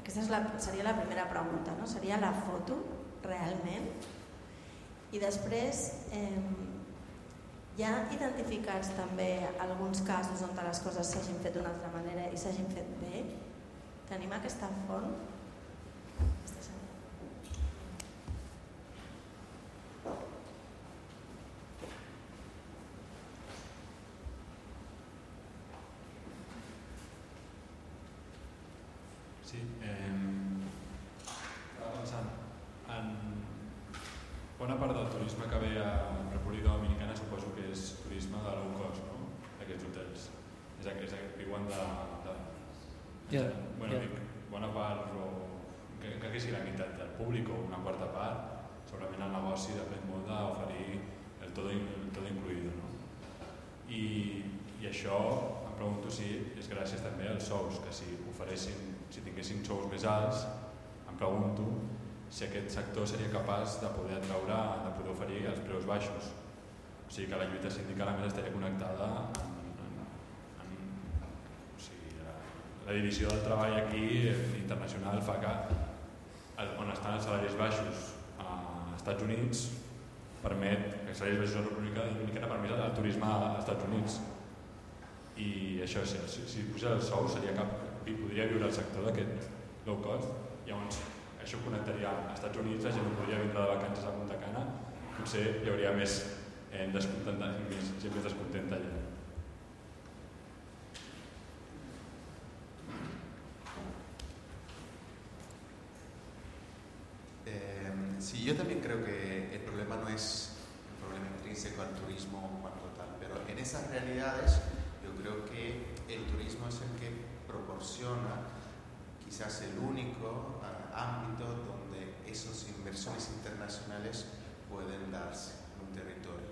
aquesta seria la primera pregunta, no? Seria la foto realment? I després hi ha identificats també alguns casos on les coses s'hagin fet d'una altra manera i s'hagin fet bé? Tenim aquesta font? Sí, estava pensant en bona part del turisme que ve a República Dominicana, suposo que és turisme de low cost, no? Aquests hotels. Viuen dic, bona part, o que sigui la meitat del públic o una quarta part, segurament el negoci depèn molt d'oferir el todo incluido, no? I això em pregunto si és gràcies també als sous, que si tinguessin sous més alts, em pregunto si aquest sector seria capaç de poder atraure, de poder oferir els preus baixos. O sigui que la lluita sindical a més estaria connectada la divisió del treball aquí internacional fa que on estan els salaris baixos als Estats Units permet que els salaris baixos a la República Dominicana permet el turisme als Estats Units. I això, si posés el sou, podria viure el sector d'aquest low cost. Llavors, això connectaria als Estats Units, la gent no podria vindre de vacances a Punta Cana, potser hi hauria més gent més descontenta allà. Sí, yo también creo que el problema no es un problema intrínseco al turismo en cuanto tal, pero en esas realidades yo creo que el turismo es el que proporciona quizás el único ámbito donde esas inversiones internacionales pueden darse en un territorio.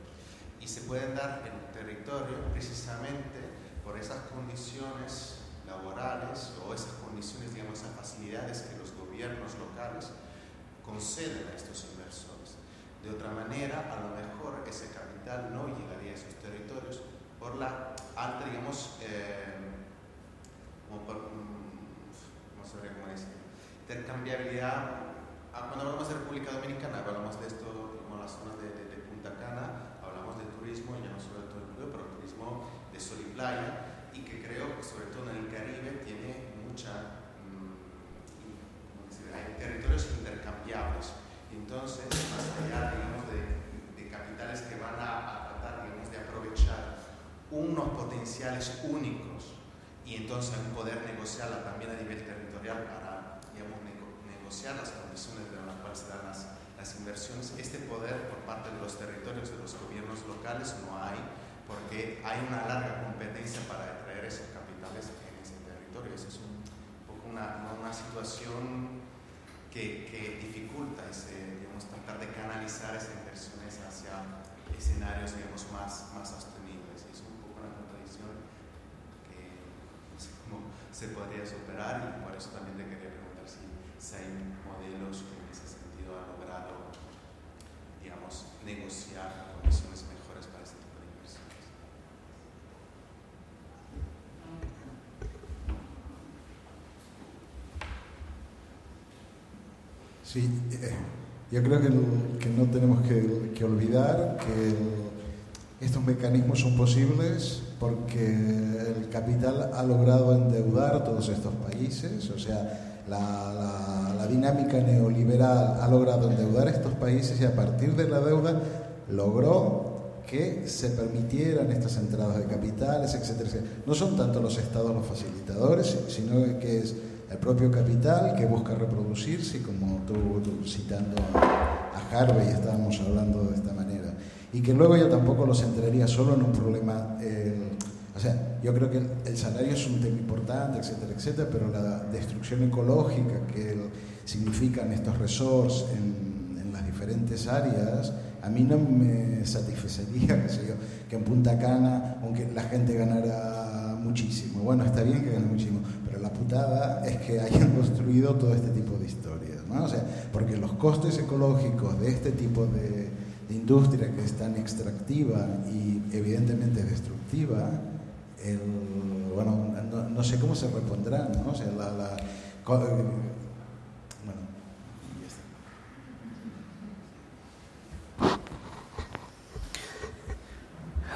Y se pueden dar en un territorio precisamente por esas condiciones laborales o esas condiciones, digamos, esas facilidades que los gobiernos locales conceden a estos inversores. De otra manera, a lo mejor ese capital no llegaría a esos territorios por la alta, digamos, intercambiabilidad. Cuando hablamos de República Dominicana, hablamos de esto, como las zonas de Punta Cana, hablamos de turismo, ya no solo de todo incluido, pero turismo de sol y playa, y que creo que sobre todo en el Caribe tiene mucha... hay territorios intercambiables. Entonces, más allá, digamos, de capitales que van a tratar, digamos, de aprovechar unos potenciales únicos y entonces poder negociarla también a nivel territorial, territorial para, digamos, negociar las condiciones en las cuales se dan las inversiones. Este poder por parte de los territorios, de los gobiernos locales, no hay, porque hay una larga competencia para atraer esos capitales en ese territorio. Esa es un poco una situación que dificulta digamos, tratar de canalizar esas inversiones hacia escenarios, digamos, más sostenibles. Es un poco una contradicción que no sé cómo se podría superar, y por eso también te quería preguntar si hay modelos que en ese sentido han logrado, digamos, negociar condiciones mejores para este tipo de inversiones. Sí, yo creo que no tenemos que olvidar que estos mecanismos son posibles porque el capital ha logrado endeudar todos estos países, o sea, la dinámica neoliberal ha logrado endeudar estos países y a partir de la deuda logró que se permitieran estas entradas de capitales, etcétera, etcétera. No son tanto los estados los facilitadores, sino que es el propio capital que busca reproducirse, como tú citando a Harvey estábamos hablando de esta manera, y que luego yo tampoco lo centraría solo en un problema, o sea, yo creo que el salario es un tema importante, etcétera, etcétera, pero la destrucción ecológica que significan estos resorts en las diferentes áreas, a mí no me satisfacería, qué sé yo, que en Punta Cana, aunque la gente ganara muchísimo, bueno, está bien que gane muchísimo, pero la putada es que hayan construido todo este tipo de historias, ¿no? O sea, porque los costes ecológicos de este tipo de industria que es tan extractiva y evidentemente destructiva, bueno, no sé cómo se repondrán, ¿no? O sea,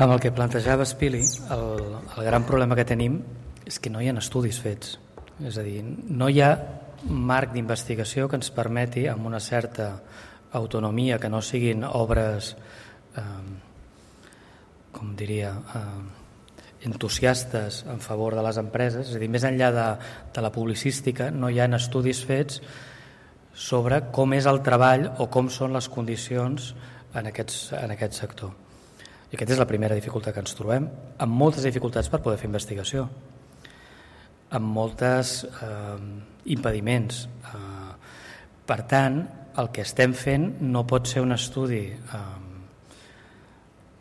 Amb el que plantejava Spili, el gran problema que tenim és que no hi ha estudis fets. És a dir, no hi ha marc d'investigació que ens permeti, amb una certa autonomia, que no siguin obres, com diria, entusiastes en favor de les empreses. És a dir, més enllà de la publicística, no hi ha estudis fets sobre com és el treball o com són les condicions en aquest sector. I aquesta és la primera dificultat que ens trobem, amb moltes dificultats per poder fer investigació, amb molts impediments. Per tant, el que estem fent no pot ser un estudi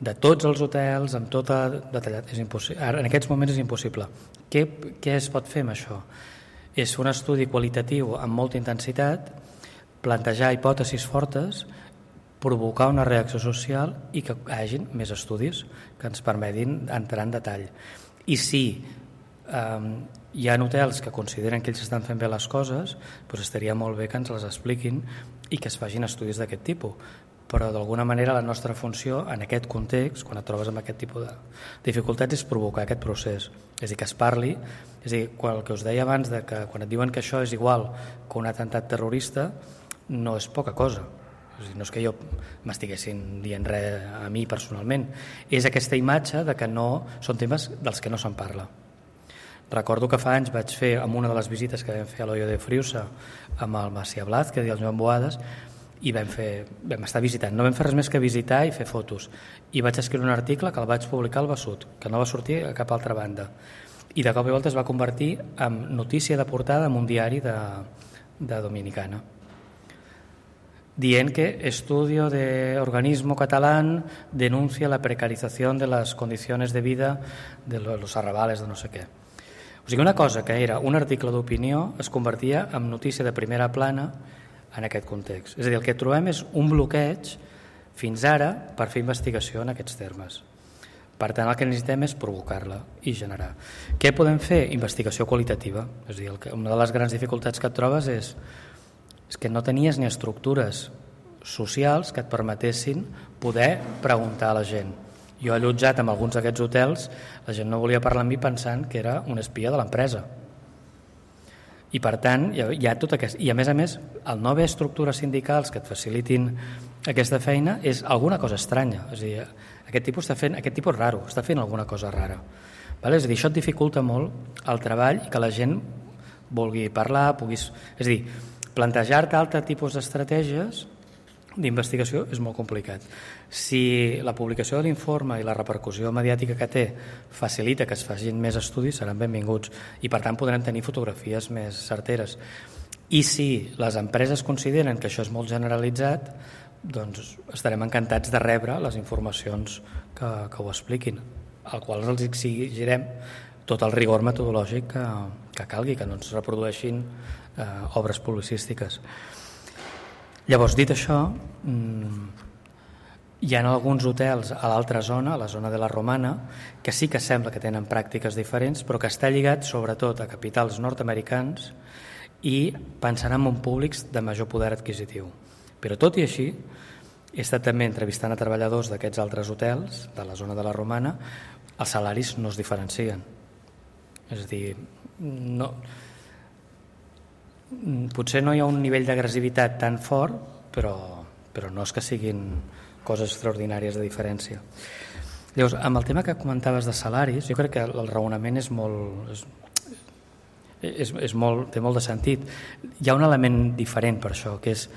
de tots els hotels, amb tot detallat. En aquests moments és impossible. Què es pot fer amb això? És un estudi qualitatiu amb molta intensitat, plantejar hipòtesis fortes, provocar una reacció social i que hi hagi més estudis que ens permetin entrar en detall. I si hi ha hotels que consideren que ells estan fent bé les coses, doncs estaria molt bé que ens les expliquin i que es facin estudis d'aquest tipus. Però d'alguna manera la nostra funció en aquest context, quan et trobes amb aquest tipus de dificultats, és provocar aquest procés. És a dir, que es parli, és a dir, el que us deia abans, de que quan et diuen que això és igual que un atemptat terrorista, no és poca cosa. No és que jo m'estiguessin dient res a mi personalment, és aquesta imatge de que no són temes dels que no se'n parla. Recordo que fa anys vaig fer, amb una de les visites que vam fer a l'Hoyo de Friusa amb el Macià Blázquez i el Joan Boades, i vam estar visitant, no vam fer res més que visitar i fer fotos, i vaig escriure un article que el vaig publicar al Besut, que no va sortir a cap altra banda, i de cop i volta es va convertir en notícia de portada en un diari de Dominicana, dient que estudio de organismo catalán denuncia la precarización de las condiciones de vida de los arrabales de no sé què. O sigui, una cosa que era un article d'opinió es convertia en notícia de primera plana en aquest context. És a dir, el que trobem és un bloqueig fins ara per fer investigació en aquests termes. Per tant, el que necessitem és provocar-la i generar. Què podem fer? Investigació qualitativa. És a dir, una de les grans dificultats que et trobes és que no tenies ni estructures socials que et permetessin poder preguntar a la gent. Jo he allotjat en alguns d'aquests hotels, la gent no volia parlar amb mi pensant que era un espia de l'empresa. I per tant, hi ha tot aquest... I a més, el no haver estructures sindicals que et facilitin aquesta feina és alguna cosa estranya. És a dir, aquest tipus raro, està fent alguna cosa rara. És a dir, això et dificulta molt el treball i que la gent vulgui parlar, és a dir, plantejar-te altre tipus d'estratègies d'investigació és molt complicat. Si la publicació de l'informe i la repercussió mediàtica que té facilita que es facin més estudis, seran benvinguts i per tant podrem tenir fotografies més certeres. I si les empreses consideren que això és molt generalitzat, doncs estarem encantats de rebre les informacions que ho expliquin, al qual els exigirem tot el rigor metodològic que calgui, que no ens reprodueixin obres publicístiques. Llavors, dit això, hi ha alguns hotels a l'altra zona, a la zona de la Romana, que sí que sembla que tenen pràctiques diferents, però que està lligat sobretot a capitals nord-americans i pensant en públics de major poder adquisitiu. Però tot i així, he estat també entrevistant a treballadors d'aquests altres hotels, de la zona de la Romana, els salaris no es diferencien. És a dir, potser no hi ha un nivell d'agressivitat tan fort, però no és que siguin coses extraordinàries de diferència. Llavors, amb el tema que comentaves de salaris, jo crec que el raonament és molt, té molt de sentit. Hi ha un element diferent per això, que és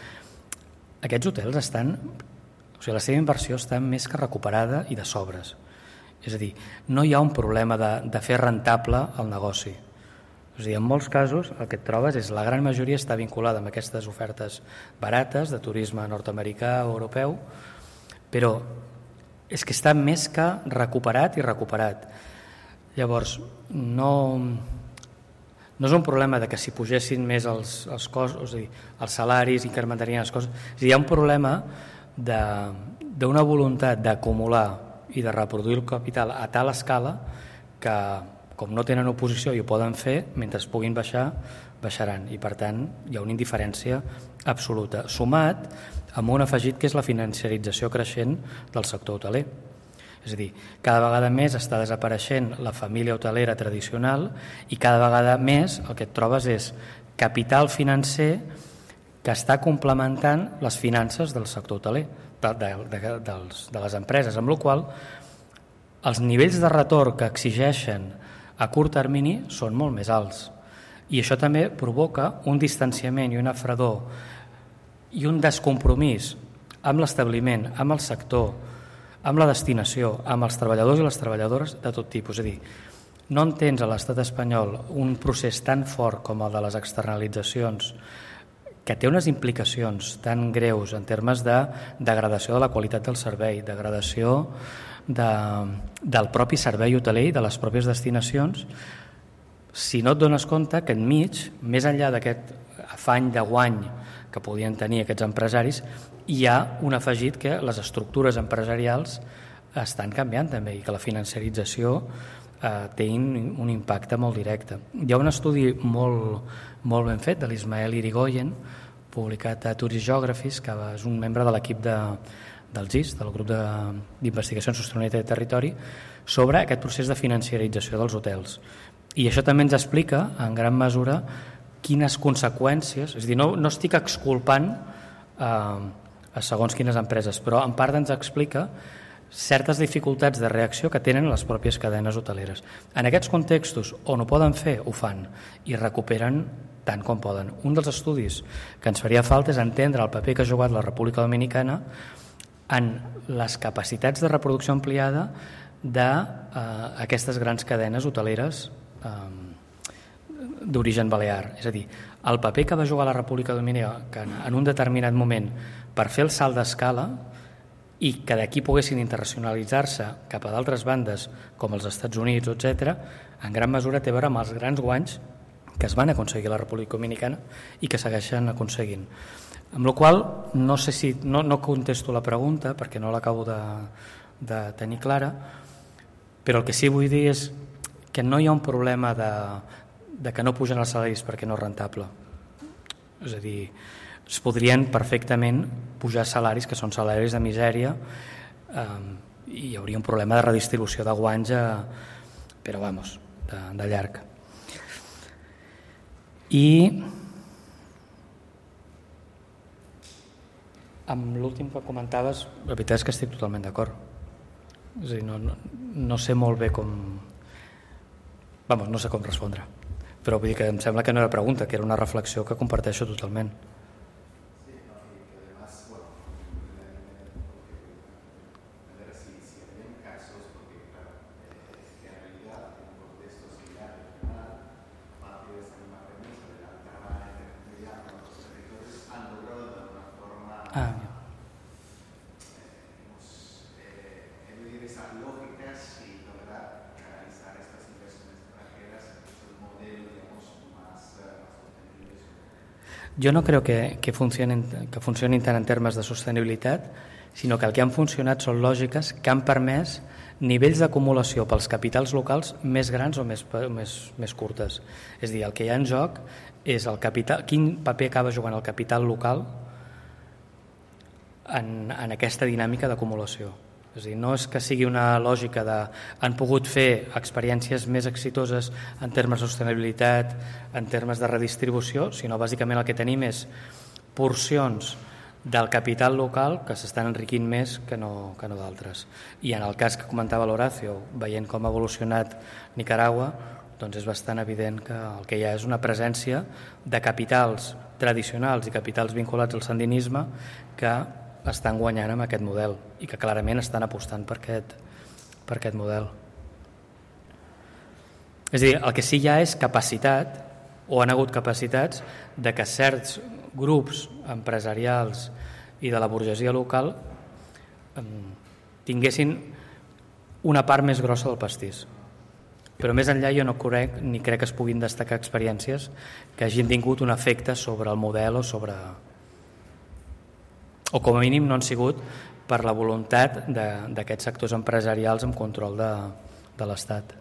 aquests hotels estan, o sigui, la seva inversió està més que recuperada i de sobres. És a dir, no hi ha un problema de fer rentable el negoci. És a dir, en molts casos el que et trobes és la gran majoria està vinculada amb aquestes ofertes barates de turisme nord-americà o europeu, però és que està més que recuperat i recuperat. Llavors, no és un problema de que si pugessin més els costos, és a dir, els salaris incrementarien les coses. És a dir, hi ha un problema d'una voluntat d'acumular i de reproduir el capital a tal escala que, com no tenen oposició i ho poden fer, mentre es puguin baixar, baixaran. I per tant hi ha una indiferència absoluta, sumat amb un afegit que és la financiarització creixent del sector hoteler. És a dir, cada vegada més està desapareixent la família hotelera tradicional i cada vegada més el que et trobes és capital financer que està complementant les finances del sector hoteler, de les empreses, amb la qual cosa els nivells de retorn que exigeixen a curt termini són molt més alts. I això també provoca un distanciament i una fredor i un descompromís amb l'establiment, amb el sector, amb la destinació, amb els treballadors i les treballadores de tot tipus. És a dir, no entens a l'estat espanyol un procés tan fort com el de les externalitzacions que té unes implicacions tan greus en termes de degradació de la qualitat del servei, degradació del propi servei hoteler i de les pròpies destinacions, si no et dones compte que enmig, més enllà d'aquest afany de guany que podien tenir aquests empresaris, hi ha un afegit que les estructures empresarials estan canviant també i que la financiarització té un impacte molt directe. Hi ha un estudi molt ben fet de l'Ismael Irigoyen, publicat a Tourist Geographies, que és un membre de l'equip del GIS, del grup d'investigació en sostenibilitat de territori, sobre aquest procés de financiarització dels hotels. I això també ens explica, en gran mesura, quines conseqüències, és a dir, no estic exculpant a segons quines empreses, però en part ens explica certes dificultats de reacció que tenen les pròpies cadenes hoteleres. En aquests contextos on ho poden fer, ho fan i recuperen tant com poden. Un dels estudis que ens faria falta és entendre el paper que ha jugat la República Dominicana en les capacitats de reproducció ampliada d'aquestes grans cadenes hoteleres d'origen balear. És a dir, el paper que va jugar la República Dominicana en un determinat moment per fer el salt d'escala i que d'aquí poguessin internacionalitzar-se cap a d'altres bandes com els Estats Units, etc., en gran mesura té a veure amb els grans guanys que es van aconseguir a la República Dominicana i que segueixen aconseguint. Amb la qual cosa, no sé si no contesto la pregunta perquè no l'acabo de tenir clara, però el que sí vull dir és que no hi ha un problema de que no pugen els salaris perquè no és rentable. És a dir, es podrien perfectament pujar salaris que són salaris de misèria i hi hauria un problema de redistribució de guanys però vamos, de llarg. I amb l'últim que comentaves, la veritat és que estic totalment d'acord. És a dir, no sé molt bé com... Vamos, no sé com respondre. Però vull dir que em sembla que no era pregunta, que era una reflexió que comparteixo totalment. Jo no crec que funcionin tant en termes de sostenibilitat, sinó que el que han funcionat són lògiques que han permès nivells d'acumulació pels capitals locals més grans o més curtes. És a dir, el que hi ha en joc és el capital, quin paper acaba jugant el capital local en aquesta dinàmica d'acumulació. És a dir, no és que sigui una lògica de han pogut fer experiències més exitoses en termes de sostenibilitat, en termes de redistribució, sinó bàsicament el que tenim és porcions del capital local que s'estan enriquint més que no d'altres. I en el cas que comentava l'Horacio, veient com ha evolucionat Nicaragua, doncs és bastant evident que el que hi ha és una presència de capitals tradicionals i capitals vinculats al sandinisme que estan guanyant amb aquest model i que clarament estan apostant per aquest model. És a dir, el que sí hi ha és capacitat, o han hagut capacitats, de que certs grups empresarials i de la burgesia local tinguessin una part més grossa del pastís. Però més enllà jo no crec que es puguin destacar experiències que hagin tingut un efecte sobre el model o com a mínim no han sigut per la voluntat d'aquests sectors empresarials amb control de l'Estat.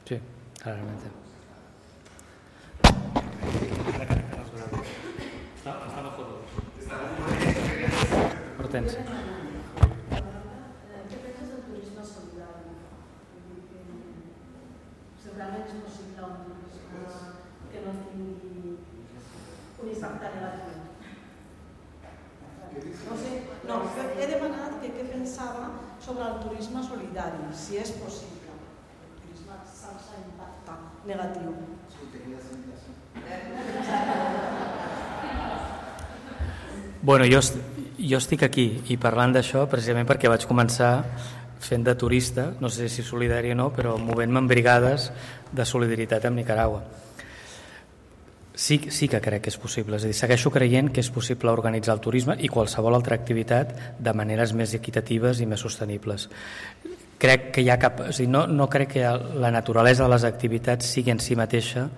Sí, claramente. Hortensia. ¿Qué piensas del turismo solidario? Seguramente es posible un turismo que no tingui un impacte negatiu. No, he demanat que què pensava sobre el turisme solidari, si és possible. Sense impacte negatiu. Bueno, jo estic aquí i parlant d'això precisament perquè vaig començar fent de turista, no sé si solidari o no, però movent-me en brigades de solidaritat amb Nicaragua. Sí que crec que és possible, és a dir, segueixo creient que és possible organitzar el turisme i qualsevol altra activitat de maneres més equitatives i més sostenibles. Crec que hi ha no crec que la naturalesa de les activitats sigui en si mateixa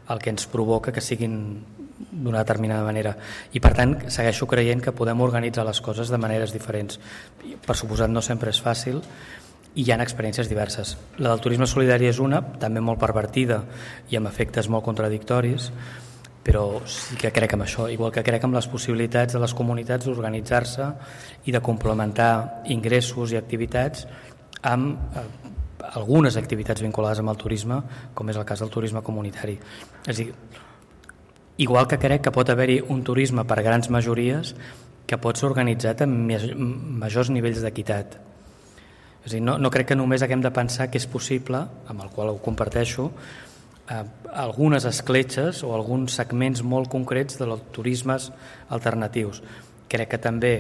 el que ens provoca que siguin d'una determinada manera i per tant segueixo creient que podem organitzar les coses de maneres diferents. Per suposat no sempre és fàcil i hi ha experiències diverses. La del turisme solidari és una, també molt pervertida i amb efectes molt contradictoris, però sí que crec en això, igual que crec en les possibilitats de les comunitats d'organitzar-se i de complementar ingressos i activitats amb algunes activitats vinculades amb el turisme, com és el cas del turisme comunitari. És a dir, igual que crec que pot haver-hi un turisme per grans majories que pot ser organitzat amb majors nivells d'equitat. És a dir, no crec que només haguem de pensar que és possible, amb el qual ho comparteixo, algunes escletxes o alguns segments molt concrets dels turismes alternatius. Crec que també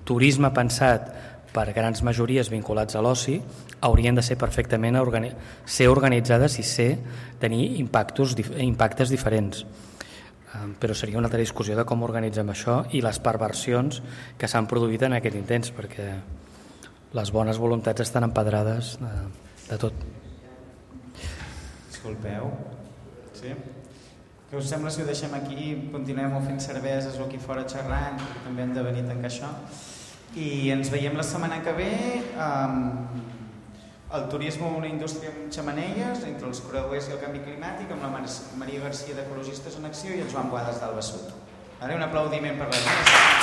turisme pensat per grans majories vinculats a l'oci haurien de ser perfectament ser organitzades i tenir impactes diferents. Però seria una altra discussió de com organitzem això i les perversions que s'han produït en aquest intent, perquè les bones voluntats estan empedrades de tot. Disculpeu. Sí? Què us sembla si ho deixem aquí i continuem fent cerveses o aquí fora xerrant, perquè també hem de venir a tancar això? I ens veiem la setmana que ve El turisme una indústria amb xemeneies, entre els creuers i el canvi climàtic, amb la Maria Garcia d'Ecologistes en Acció i el Joan Boades d'Alba Sud. Ara un aplaudiment per les meves.